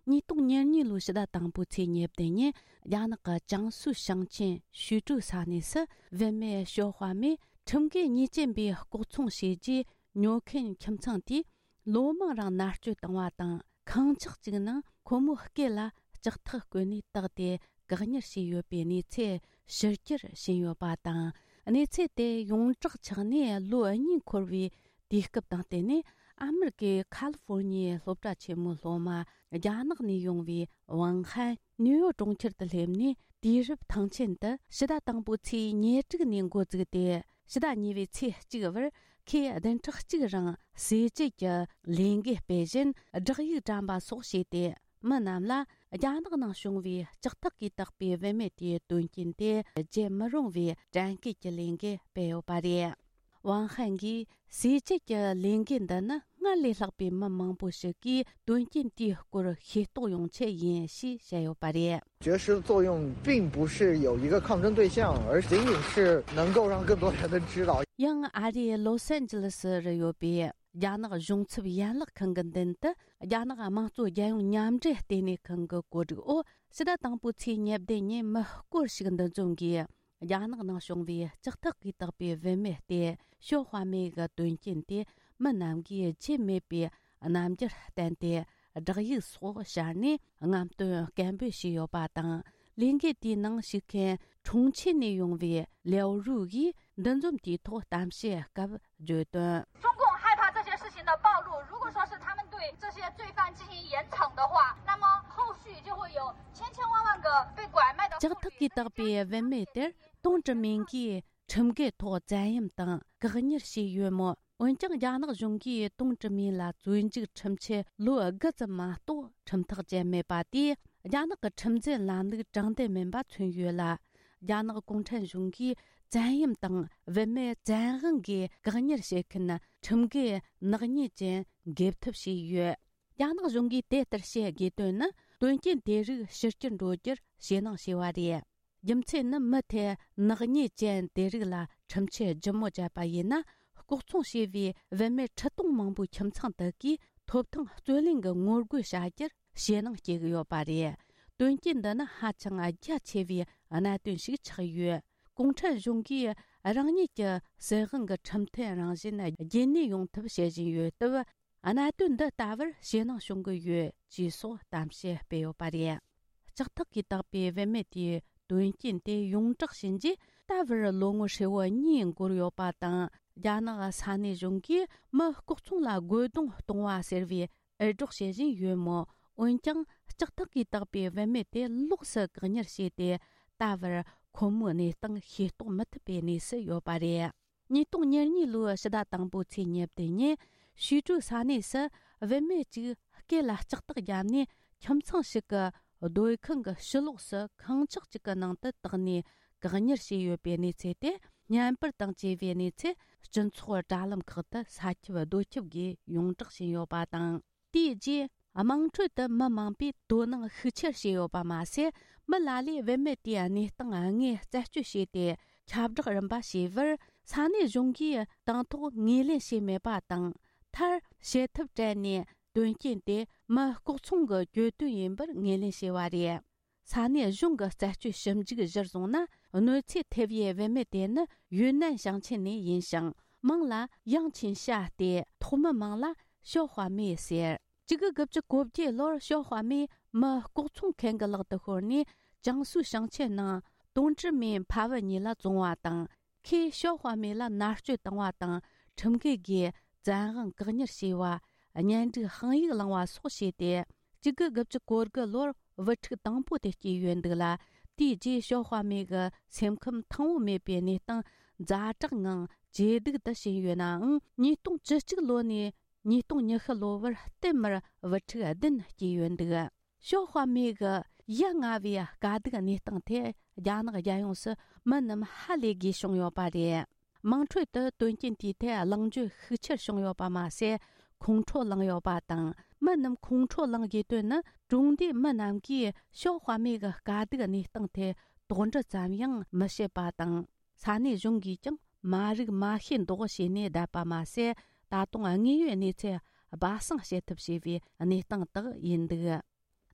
ཉིས་སྟོང་ཉེར་གཉིས་ལོའི་ཕྱི་ཟླ་དང་པོའི་ཚེས་ཉེར་བདུན་ཉིན་རྒྱ་ནག་གི་ཅང་སུའུ་ཞིང་ཆེན་ཞུས་ཀྲུའུ་ས་གནས་སུ་བུད་མེད་ཞའོ་ཧྭ་མེས་ཁྲིམས་འགལ་ཉེས་ཅན་པའི་ལྐོག་ཚོང་བྱས་རྗེས་ཉོ་མཁན་ཁྱིམ་ཚང་དེས་ལོ་མང་རིང་མནར་གཅོད་བཏང་བ་དང་། ཁང་ཆག་ཅིག་ནང་ཁོ་མོའི་སྐེ་ལ་ལྕགས་ཐག་བསྐོན་ནས་བཏགས་ཏེ་བཀག་ཉར་བྱས་ཡོད་པའི་གནས་ཚུལ་ཕྱི་གྱར་ཕྱིན་ཡོད་པ་དང་། གནས་ཚུལ་དེ་ཡོངས་གྲགས་ཆགས་ནས་ལོ་གཉིས་འཁོར་བའི་དུས་སྐབས་དང་བསྟུན་ནས། ཨ་མེ་རི་ཀའི་ཁ་ལི་ཧྥོར་ཉི་ཡའི་སློབ་གྲྭ་ཆེན་མོའི་སློབ་མ་རྒྱ་ནག་ནས་ཡོང་བའི་ཝང་ཧན་ནིའུ་ཡོག་གྲོང་ཁྱེར་དུ་སླེབས་ནས། དུས་རབས་ཐང་ཆེན་དུ་ཕྱི་ཟླ་དང་པོའི་ཚེས་ཉེར་དྲུག་ནས་འགོ་བཙུགས་ཏེ། ཕྱི་ཟླ་གཉིས་པའི་ཚེས་གཅིག་བར་ཁོས་བདུན་ཕྲག་གཅིག་རིང་ཟས་བཅད་ཀྱི་ལས་འགུལ་སྤེལ་བཞིན། བསྒྲགས་ཡིག་བཀྲམ་པ་སོགས་བྱས་ཏེ། མི་རྣམས་ལ་རྒྱ་ནག་ནང་བྱུང་བའི་ལྕགས་ཐག་གིས་བཏགས་པའི་བུད་མེད་དེའི་དོན་རྐྱེན་དེ་བརྗེད་མི་རུང་བའི་དྲན་སྐུལ་གྱི་ལས་འགུལ་སྤེལ་ཡོད་པ་རེད། ཝང་ཧན་གྱིས་ཟས་བཅད་ཀྱི་ལས་འགུལ་འདི་ནི་སྔར་ལས་ལྷག་པའི་མི་མང་པོ་ཞིག་གིས་དོན་རྐྱེན་དེའི་སྐོར་ཤེས་རྟོགས་ཡོང་ཆེད་ཡིན་ཞེས་བཤད་ཡོད་པ་རེད། 绝食的作用并不是有一个抗争对象，而仅仅是能够让更多人知道。 ཡང་ཨ་རིའི་ལོ་སན་ཇི་ལི་སི་རུ་ཡོད་པའི་རྒྱ་ནག་གཞུང་ཚབ་ཡན་ལག་ཁང་གི་མདུན་དུ། རྒྱ་ནག་དམངས་གཙོ་རྒྱལ་ཡོངས་མཉམ་འབྲེལ་ལྟེ་གནས་ཁང་གི་བཀོད་སྒྲིག་འོག་ཕྱི་ཟླ་དང་པོའི་ཚེས་ཉེར་བདུན་ཉིན་མི་སྐོར་ཞིག་འདུ་འཛོམས་ཀྱིས། རྒྱ་ནག་ནང་བྱུང་བའི་ལྕགས་ཐག་གིས་བཏགས་པའི་བུད་མེད་དེ་ཞའོ་ཧྭ་མེ་གི་དོན་རྐྱེན་དེ་མི་རྣམས་ཀྱིས་བརྗེད་མེད་པའི་རྣམ་འགྱུར་བསྟན་ཏེ། བསྒྲགས་ཡིག་སོགས་ཤར་ནས་རྔམ་སྟོན་སྐད་འབོད་བྱས་ཡོད་པ་དང་། ལས་འགུལ་དེའི་ནང་ཞུགས་མཁན་ཁྲུང་ཆིན་ནས་ཡོང་བའི་ལེའོ་རུའུ་ཡིས་འདུ་འཛོམས་དེའི་ཐོག་གཏམ་བཤད་སྐབས་བརྗོད་དོན། 中共害怕这些事情的暴露，如果说是他们对这些罪犯进行严惩的话，那么后续就会有千千万万个被拐卖的妇女。 ལྕགས་ཐག་གིས་བཏགས་པའི་བུད་མེད་དེར་ཏུང་ཀྲི་མིང་གིས་ཁྲིམས་འགལ་ཐོག་བཙན་གཡེམ་དང་བཀག་ཉར་བྱས་ཡོད་མོད། འོན་ཀྱང་རྒྱ་ནག་གཞུང་གིས་ཏུང་ཀྲི་མིང་ལ་བཙོན་འཇུག་ཁྲིམས་ཆད་ལོ་དགུ་ཙམ་མ་གཏོགས་ཁྲིམས་ཐག་བཅད་མེད་པ་དེས། རྒྱ་ནག་གི་ཁྲིམས་འཛིན་ལམ་ལུགས་དྲང་བདེན་མིན་པ་མཚོན་ཡོད་ལ། རྒྱ་ནག་གུང་ཁྲན་གཞུང་གིས་བཙན་གཡེམ་དང་བུད་མེད་བཙན་དབང་གིས་བཀག་ཉར་བྱེད་མཁན་ཁྲིམས་འགལ་ནག་ཉེས་ཅན་འགེབས་ཐབས་བྱས་ཡོད། རྒྱ་ནག་གཞུང་གིས་དེ་ལྟར་བྱེད་དགོས་དོན་ནི། དོན་རྐྱེན་དེ་རིགས་ཕྱི་གྱར་འགྲོ་རྒྱུར་ཞེད་སྣང་བྱས་པ་རེད། རྒྱུ་མཚན་ནི། མི་དེ་ནག་ཉེས་ཅན་དེ་རིགས་ལ་ཁྲིམས་ཆད་ལྗིད་མོ་བཅད་པ་ཡིན་ན། ལྐོག་ཚོང་བྱས་པའི་བུད་མེད་ཁྲི་སྟོང་མང་པོའི་ཁྱིམ་ཚང་དག་གིས་ཐོབ་ཐང་རྩོད་ལེན་གྱི་ངོ་རྒོལ་བྱ་རྒྱུར་ཞེད་སྣང་སྐྱེ་གི་ཡོད་པ་རེད། དོན་རྐྱེན་འདི་ནི་ཧ་ཅང་རྒྱ་ཆེ་བའི་གནད་དོན་ཞིག་ཆགས་ཡོད། གུང་ཁྲན་གཞུང་གིས་རང་ཉིད་ཀྱི་སྲིད་དབང་གི་ཁྲིམས་མཐུན་རང་བཞིན་རྒྱུན་གནས་ཡོང་ཐབས་བྱེད་བཞིན་ཡོད་སྟབས། གནད་དོན་འདི་ལྟ་བུར་ཞེད་སྣང་བྱུང་གི་ཡོད་ཅེས་སོགས་གཏམ་བཤད་སྤེལ་ཡོད་པ་རེད། ལྕགས་ཐག་གིས་བཏགས་པའི་བུད་མེད་དེའི་དོན་རྐྱེན་དེ་ཡོངས་གྲགས་ཕྱིན་རྗེས། ད་བར་ལོ་ངོ་ཧྲིལ་བོ་གཉིས་འགོར་ཡོད་པ་དང་། རྒྱ་ནག་ས་གནས་གཞུང་གིས་མི་ལྐོག་ཚོང་ལ་རྒོལ་རྡུང་གཏོང་བ་ཟེར་བའི་འུར་སྒྲོག་བྱེད་བཞིན་ཡོད་མོད། འོན་ཀྱང་། ལྕགས་ཐག་གིས་བཏགས་པའི་བུད་མེད་དེ་ལོགས་སུ་བཀག་ཉར་བྱས་ཏེ། ད་བར་ཁོ་མོའི་གནས་སྟངས་ཤེས་རྟོགས་མི་ཐུབ་པའི་གནས་སུ་ཡོད་པ་རེད། ཉིས་སྟོང་ཉེར་གཉིས་ལོའི་ཕྱི་ཟླ་དང་པོའི་ཚེས་ཉེར་བདུན་ཉིན། ཞུས་ཀྲུའུ་ས་གནས་སུ་བུད་མེད་ཅིག་སྐེ་ལ་ལྕགས་ཐག་བརྒྱབ་ནས། ཁྱིམ་ཚང་ཞིག་གི་སྡོད་ཁང་གི་ཕྱི་ལོགས་སུ་ཁང་ཆག་ཅིག་གི་ནང་དུ་བཏགས་ནས་བཀག་ཉར་བྱས་ཡོད་པའི་གནས་ཚུལ་དེ། བརྙན་པར་དང་བཅས་པའི་གནས་ཚུལ་སྤྱི་ཚོགས་དྲ་ལམ་ཁག་ཏུ་ས་ཁྱབ་རྡོ་ཁྱབ་སྒོས་ཡོངས་གྲགས་ཕྱིན་ཡོད་པ་དང་། དེའི་རྗེས། དམངས་ཁྲོད་དུ་མི་མང་པོས་དོ་སྣང་ཤུགས་ཆེར་བྱས་ཡོད་པ་མ་ཟད། མི་ལ་ལས་བུད་མེད་དེའི་གནས་སྟངས་དངོས་རྩད་གཅོད་བྱས་ཏེ། ཁྱབ་བསྒྲགས་རིམ་པ་བྱས་པར། ས་གནས་གཞུང་གིས་དང་ཐོག་ངོས་ལེན་བྱས་མེད་པ་དང་། མཐར། བྱེད་ཐབས་བྲལ་ནས། དོན་རྐྱེན་དེ་མི་ལྐོག་ཚོང་གི་གྱོད་དོན་ཡིན་པར་ངོས་ལེན་བྱས་པ་རེད། ས་གནས་གཞུང་གི་རྩད་གཅོད་ཞིབ་འཇུག་གཞིར་བཟུང་ན། གནོད་འཚེ་ཐེབས་པའི་བུད་མེད་དེ་ནི་ཡུན་ནན་ཞིང་ཆེན་ནས་ཡིན་ཞིང་། མིང་ལ་ཡང་ཆིན་ཤ་སྟེ། ཐོག་མའི་མིང་ལ་ཞའོ་ཧྭ་མེ་ཟེར། གཅིག་དགུ་དགུ་བཅུ་གོ་བརྒྱད་ལོར་ཞའོ་ཧྭ་མེ་མི་ལྐོག་ཚོང་མཁན་གྱི་ལག་ཏུ་ཤོར་ནས། ཅང་སུའུ་ཞིང་ཆེན་ནང་ཏུང་ཀྲི་མིན་ཕ་བུ་གཉིས་ལ་བཙོངས་པ་དང་། ཁོས་ཞའོ་ཧྭ་མེ་ལ་མནར་གཅོད་བཏང་བ་དང་། ཁྲིམས་འགལ་གྱིས་བཙན་དབང་བཀག་ཉར་བྱས་པ། གཉེན་སྒྲིག་དཔང་ཡིག་བླངས་པ་སོགས་བྱས་ཏེ། གཅིག་དགུ་དགུ་བཅུ་གོ་དགུ་ལོར་བུ་ཕྲུག་དང་པོ་དེ་སྐྱེས་ཡོད་འདུག་ལ། དེའི་རྗེས་ཞའོ་ཧྭ་མེ་གི་སེམས་ཁམས་ཐང་པོ་མེད་པའི་གནས་སྟངས་ཛ་དྲག་ངང་ཇེ་སྡུག་ཏུ་ཕྱིན་ཡོད་ནའང་། ཉིས་སྟོང་བཅུ་གཅིག་ལོ་ནས་ཉིས་སྟོང་ཉི་ཤུ་ལོ་བར་བསྟུད་མར་བུ་ཕྲུག་བདུན་སྐྱེས་ཡོད་འདུག་ཞའོ་ཧྭ་མེ་གི་ཡ་ང་བའི་དཀའ་སྡུག་གནས་སྟངས་ཐད་རྒྱ་ནག་རྒྱལ་ཡོངས་སུ་མི་རྣམས་ཧ་ལས་དགོས་བྱུང་ཡོད་པ་རེད། དམངས་ཁྲོད་དུ་དོན་རྐྱེན་དེའི་ཐད་གླེང་བརྗོད་ཤུགས་ཆེར་བྱུང་ཡོད་པ་མ་ཟད། ཁོང་ཁྲོ་ལངས་ཡོད་པ་དང་། མི་རྣམས་ཁོང་ཁྲོ་ལངས་དགོས་དོན་ནི། གྲོང་སྡེའི་མི་རྣམས་ཀྱིས་ཞའོ་ཧྭ་མེ་གི་དཀའ་སྡུག་གནས་སྟངས་ཐད་དོགས་འདྲི་ཙམ་ཡང་མི་བྱེད་པ་དང་། ས་གནས་གཞུང་གིས་ཀྱང་མ་རིག་མ་ཤེས་མདོག་བྱས་ནས་བསྡད་པ་མ་ཟད། ད་དུང་དངོས་ཡོད་གནས་ཚུལ་སྦ་གསང་བྱེད་ཐབས་བྱས་པའི་གནས་སྟངས་དག་ཡིན་འདུག།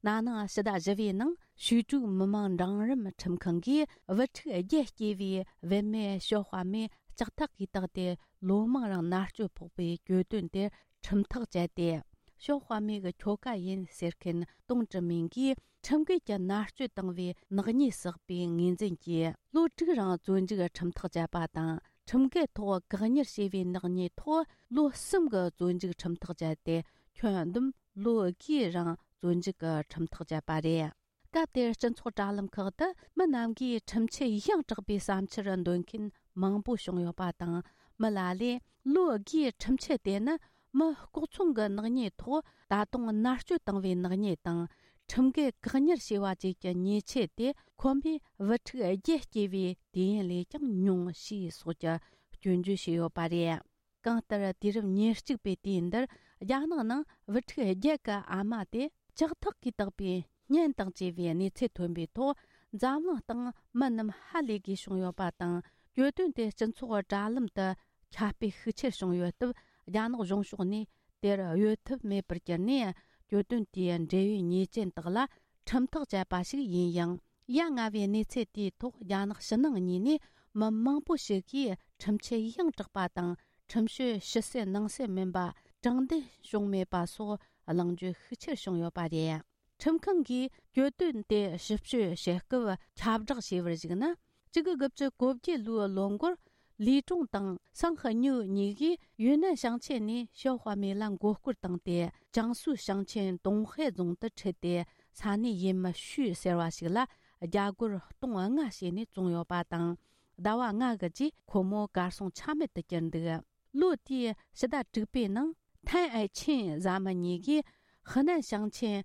ན་ནིང་ཕྱི་ཟླ་བཞི་པའི་ནང་ཞུས་ཀྲུའུ་མི་དམངས་འབྲིང་རིམ་ཁྲིམས་ཁང་གིས་བུ་ཕྲུག་བརྒྱད་སྐྱེས་པའི་བུད་མེད་ཞའོ་ཧྭ་མེ་ལྕགས་ཐག་གིས་བཏགས་ཏེ་ལོ་མང་རིང་མནར་གཅོད་ཕོག་པའི་གྱོད་དོན་དེར་ཁྲིམས་ཐག་བཅད་དེ། ཞའོ་ཧྭ་མེ་གི་ཁྱོ་ག་ཡིན་ཟེར་མཁན་ཏུང་ཀྲི་མིང་གིས་ཁྲིམས་འགལ་གྱི་མནར་གཅོད་བཏང་བའི་ནག་ཉེས་བསགས་པའི་ངོས་འཛིན་གྱིས་ལོ་དྲུག་རིང་བཙོན་འཇུག་ཁྲིམས་ཐག་བཅད་པ་དང་། ཁྲིམས་འགལ་ཐོག་བཀག་ཉར་བྱས་པའི་ནག་ཉེས་ཐོག་ལོ་གསུམ་གྱི་བཙོན་འཇུག་ཁྲིམས་ཐག་བཅད་དེ། ཁྱོན་བསྡོམས་ལོ་དགུའི་རིང་བཙོན་འཇུག་གི་ཁྲིམས་ཐག་བཅད་པ་རེད། སྐབས་དེར་སྤྱི་ཚོགས་དྲ་ལམ་ཁག་ཏུ་མི་རྣམས་ཀྱིས་ཁྲིམས་ཆད་ཡང་དྲག་པའི་བསམ་འཆར་འདོན་མཁན་མང་པོ་བྱུང་ཡོད་པ་དང་། མི་ལ་ལས་ལོ་དགུའི་ཁྲིམས་ཆད་དེ་ནི་མི་ལྐོག་ཚོང་གི་ནག་ཉེས་ཐོག་ད་དུང་མནར་གཅོད་བཏང་བའི་ནག་ཉེས་དང་། ཁྲིམས་འགལ་བཀག་ཉར་བྱས་པ་བཅས་ཀྱི་ཉེས་ཆད་དེ་ཁོ་མོས་བུ་ཕྲུག་བརྒྱད་སྐྱེས་པའི་དུས་ཡུན་ལས་ཀྱང་ཉུང་ཞེས་སོགས་ཀྱི་སྐྱོན་བརྗོད་བྱས་ཡོད་པ་རེད། གང་ལྟར་དུས་རབས་ཉེར་གཅིག་པའི་དུས་འདིར་རྒྱ་ནག་ནང་བུ་ཕྲུག་བརྒྱད་ཀྱི་ཨ་མ་དེ་ལྕགས་ཐག་གིས་བཏགས་པའི་གཉེན་དང་བཅས་པའི་གནས་ཚུལ་ཐོན་པའི་ཐོག་འཛམ་གླིང་སྟེང་མི་རྣམས་ཧ་ལས་དགོས་བྱུང་ཡོད་པ་དང་། གྱོད་དོན་དེ་སྤྱི་ཚོགས་དྲ་ལམ་དུ་ཁྱབ་སྤེལ་ཤུགས་ཆེར་བྱུང་ཡོད་སྟབས། རྒྱ་ནག་གཞུང་ཕྱོགས་ནས་དེར་གཡོལ་ཐབས་མེད་པར་གྱུར་ནས། གྱོད་དོན་དེའི་འབྲེལ་ཡོད་ཉེས་ཅན་དག་ལ་ཁྲིམས་ཐག་བཅད་པ་ཞིག་ཡིན་ཡང་། ཡ་ང་བའི་གནས་ཚུལ་དེའི་ཐོག་རྒྱ་ནག་ཕྱི་ནང་གཉིས་ནས་མི་མང་པོ་ཞིག་གིས་ཁྲིམས་ཆད་ཡང་དྲག་པ་དང་། ཁྲིམས་གཅོད་ཕྱི་གསལ་ནང་གསལ་མིན་པ། དྲང་བདེན་བྱུང་མེད་པ་སོགས་གླེང་བརྗོད་ཤུགས་ཆེར་བྱུང་ཡོད་པ་རེད། ཁྲིམས་ཁང་གིས་གྱོད་དོན་དེ་ཞིབ་དཔྱོད་བྱེད་སྐབས་ཁྱབ་བསྒྲགས་བྱས་པར་གཞིགས་ན། གཅིག་དགུ་དགུ་བཅུ་གོ་བརྒྱད་ལོའི་ལོ་འགོར། ལི་ཀྲུང་དང་སང་ཧི་ཉུ་གཉིས་ཀྱིས་ཡུན་ནན་ཞིང་ཆེན་ནས་ཞའོ་ཧྭ་མེ་ལ་མགོ་སྐོར་བཏང་སྟེ། ཅང་སུའུ་ཞིང་ཆེན་ཏུང་ཧེ་རྫོང་དུ་ཁྲིད་དེ། ས་གནས་ཡུལ་མི་ཞུས་ཟེར་བ་ཞིག་ལ་རྒྱ་སྒོར་སྟོང་ལྔ་བྱས་ནས་བཙོངས་ཡོད་པ་དང་། ཟླ་བ་ལྔ་གི་རྗེས་ཁོ་མོ་གར་སོང་ཆ་མེད་དུ་གྱུར་འདུག། ལོ་དེའི་ཕྱི་ཟླ་དྲུག་པའི་ནང་། ཐན་ཨའེ་ཆིན་བཟའ་མི་གཉིས་ཀྱིས་ཧི་ནན་ཞིང་ཆེན་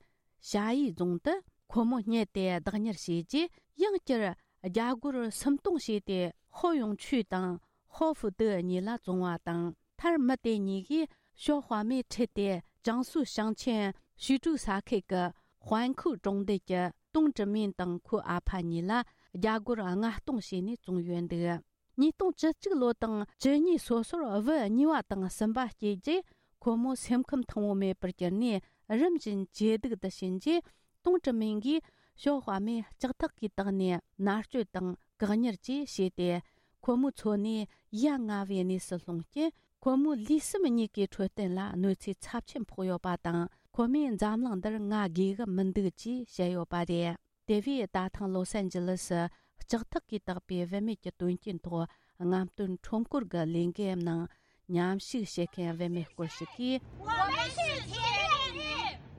ཞ་ཡི་རྫོང་དུ་ཁོ་མོ་བསྙལ་ཏེ་བདག་གཉེར་བྱས་རྗེས། ཡང་བསྐྱར་རྒྱ་སྒོར་སུམ་སྟོང་བྱས་ཏེ། ཧོ་ཡུང་ཆུས་དང་ཧོ་ཧྥུ་ཏི་གཉིས་ལ་བཙོངས་པ་དང་། མཐར་མི་དེ་གཉིས་ཀྱིས་ཞའོ་ཧྭ་མེ་ཁྲིད་དེ། ཅང་སུའུ་ཞིང་ཆེན་ཞུས་ཀྲུའུ་ས་ཁུལ་གྱི་ཧོན་ཁུའུ་གྲོང་རྡལ་གྱི་ཏུང་ཀྲི་མིན་དང་ཁོའི་ཨ་ཕ་གཉིས་ལ་རྒྱ་སྒོར་ལྔ་སྟོང་བྱས་ནས་བཙོངས་ཡོད་འདུག། ཉིས་སྟོང་བཅུ་གཅིག་ལོ་དང་བཅུ་གཉིས་སོ་སོར་བུ་གཉིས་པ་དང་གསུམ་པ་སྐྱེས་རྗེས། ཁོ་མོ་སེམས་ཁམས་ཐང་པོ་མེད་པར་གྱུར་ནས། རིམ་བཞིན་ཇེ་སྡུག་ཏུ་ཕྱིན་རྗེས། ཏུང་ཀྲི་མིང་གིས་ཞའོ་ཧྭ་མེ་ལྕགས་ཐག་གིས་བཏགས་ནས་མནར་གཅོད་དང་བཀག་ཉར་བཅས་བྱས་ཏེ། ཁོ་མོའི་འཚོ་གནས་ཡ་ང་བའི་གནས་སུ་ལྷུང་རྐྱེན། ཁོ་མོའི་ལུས་སེམས་གཉིས་ཀའི་འཕྲོད་བསྟེན་ལ་གནོད་འཚེ་ཚབས་ཆེན་ཕོག་ཡོད་པ་དང་། ཁོ་མོས་འཛམ་གླིང་འདིར་ང་དགོས་ཀྱི་མི་འདུག་ཅེས་བཤད་ཡོད་པ་རེད། དེ་བས་ད་ཐེངས་ལོ་སན་ཇི་ལི་སི་ལྕགས་ཐག་གིས་བཏགས་པའི་བུད་མེད་ཀྱི་དོན་རྐྱེན་ཐོག་རྔམ་སྟོན་ཁྲོམ་སྐོར་གྱི་ལས་འགུལ་ནང་མཉམ་ཞུགས་བྱེད་མཁན་བུད་མེད་སྐོར་ཞིག་གིས།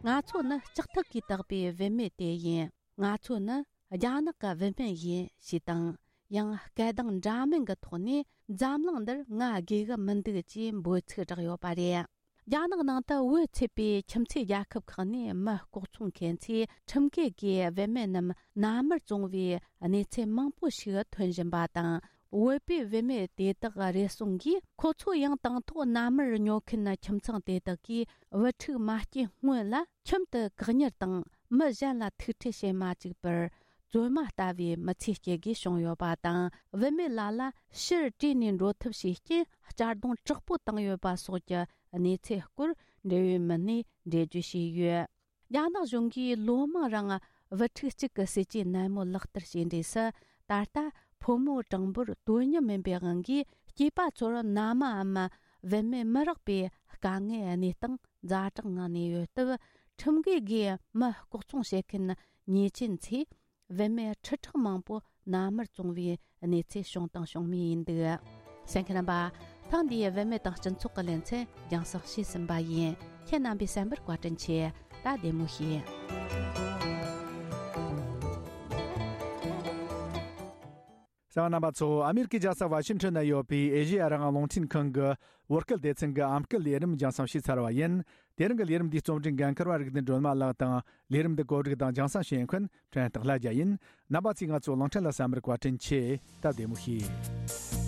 ང་ཚོ་ནི་ལྕགས་ཐག་གིས་བཏགས་པའི་བུད་མེད་དེ་ཡིན། ང་ཚོ་ནི་རྒྱ་ནག་གི་བུད་མེད་ཡིན་ཞེས་དང་། ཡང་སྐད་གདངས་འདྲ་མིན་གྱི་ཐོག་ནས་འཛམ་གླིང་འདིར་ང་དགོས་ཀྱི་མི་འདུག་ཅེས་འབོད་ཚིག་བསྒྲགས་ཡོད་པ་རེད། རྒྱ་ནག་ནང་དུ་བོད་ཚུད་པའི་ཁྱིམ་མཚེས་རྒྱལ་ཁབ་ཁག་ནས་མི་ལྐོག་ཚོང་མཁན་ཚོས་ཁྲིམས་འགལ་གྱིས་བུད་མེད་རྣམས་མནའ་མར་བཙོངས་པའི་གནས་ཚུལ་མང་པོ་ཞིག་ཐོན་བཞིན་པ་དང་། བོད་པའི་བུད་མེད་དེ་དག་རེ་ཟུང་གིས། ཁོ་ཚོ་ཡང་དང་ཐོག་མནའ་མར་ཉོ་མཁན་ཁྱིམ་ཚང་དེ་དག་གིས་བུ་ཕྲུག་མ་སྐྱེས་སྔོན་ལ་ཁྱིམ་དུ་བཀག་ཉར་དང་། མི་གཞན་ལ་ཐུག་འཕྲད་བྱེད་མ་བཅུག་པར། བཙོན་མ་ལྟ་བུའི་མི་ཚེ་སྐྱེལ་དགོས་བྱུང་ཡོད་པ་དང་། བུད་མེད་ལ་ལ་ཕྱིར་བྲོས་ནས་འགྲོ་ཐབས་བྱེད་རྐྱེན་གཅར་རྡུང་དྲག་པོ་བཏང་ཡོད་པ་སོགས་ཀྱི་གནས་ཚུལ་སྐོར་འབྲེལ་ཡོད་མི་སྣས་འགྲེལ་བརྗོད་བྱས་ཡོད། རྒྱ་ནག་གཞུང་གིས་ལོ་མང་རིང་བུ་ཕྲུག་གཅིག་གི་སྲིད་ཇུས་ནན་མོ་ལག་བསྟར་བྱས་འབྲས་སུ། ད་ལྟ་ཕོ་མོ་གྲངས་འབོར་དོ་མཉམ་མིན་པའི་དབང་གིས། སྐྱེས་པ་ཚོར་མནའ་མའམ་བུད་མེད་མི་རག་པའི་དཀའ་ངལ་གནས་སྟངས་ཛ་དྲག་ངང་གནས་ཡོད་སྟབས། ཁྲིམས་འགལ་སྒོས་མི་ལྐོག་ཚོང་བྱེད་མཁན་ཉེས་ཅན་ཚོས་བུད་མེད་ཁྲི་ཕྲག་མང་པོ་མནའ་མར་བཙོངས་པའི་གནས་ཚུལ་བྱུང་དང་འབྱུང་མུས་ཡིན་འདུག། གསན་མཁན་རྣམ་པ། ཐེངས་འདིའི་བུད་མེད་དང་སྤྱི་ཚོགས་ཀྱི་ལེ་ཚན་རྒྱང་སྲིང་བྱས་ཟིན་པ་ཡིན། ཁྱེད་རྣམ་པས་གསན་པར་བཀའ་དྲིན་ཆེ། ད་བདེ་མོ་བྱོས། གསན་པ་རྣམ་པ་ཚོ། ཨ་མེ་རི་ཀའི་རྒྱལ་ས་ཝ་ཤིང་ཊོན་ན་ཡོད་པའི་ཨེ་ཤེ་ཡ་རང་དབང་རླུང་འཕྲིན་ཁང་གི་བོད་སྐད་སྡེ་ཚན་གྱི་ཨམ་སྐད་ལས་རིམ་རྒྱང་སྲིང་བྱས་ཚར་བ་ཡིན། དེ་རིང་གི་ལས་རིམ་འདིའི་རྩོམ་སྒྲིག་འགན་འཁུར་བ་རིག་ལྡན་སྒྲོལ་མ་ལགས་དང་། ལས་རིམ་འདི་གོ་སྒྲིག་དང་རྒྱང་སྲིང་བྱེད་མཁན་ཕྲན་སྟག་ལྷ་རྒྱལ་ཡིན། རྣམ་པ་ཚོས་ང་ཚོའི་གླིང་ཕྲན་ལ་གསན་པར་བཀའ་དྲིན་ཆེ། ད་བདེ་མོ་བྱོས།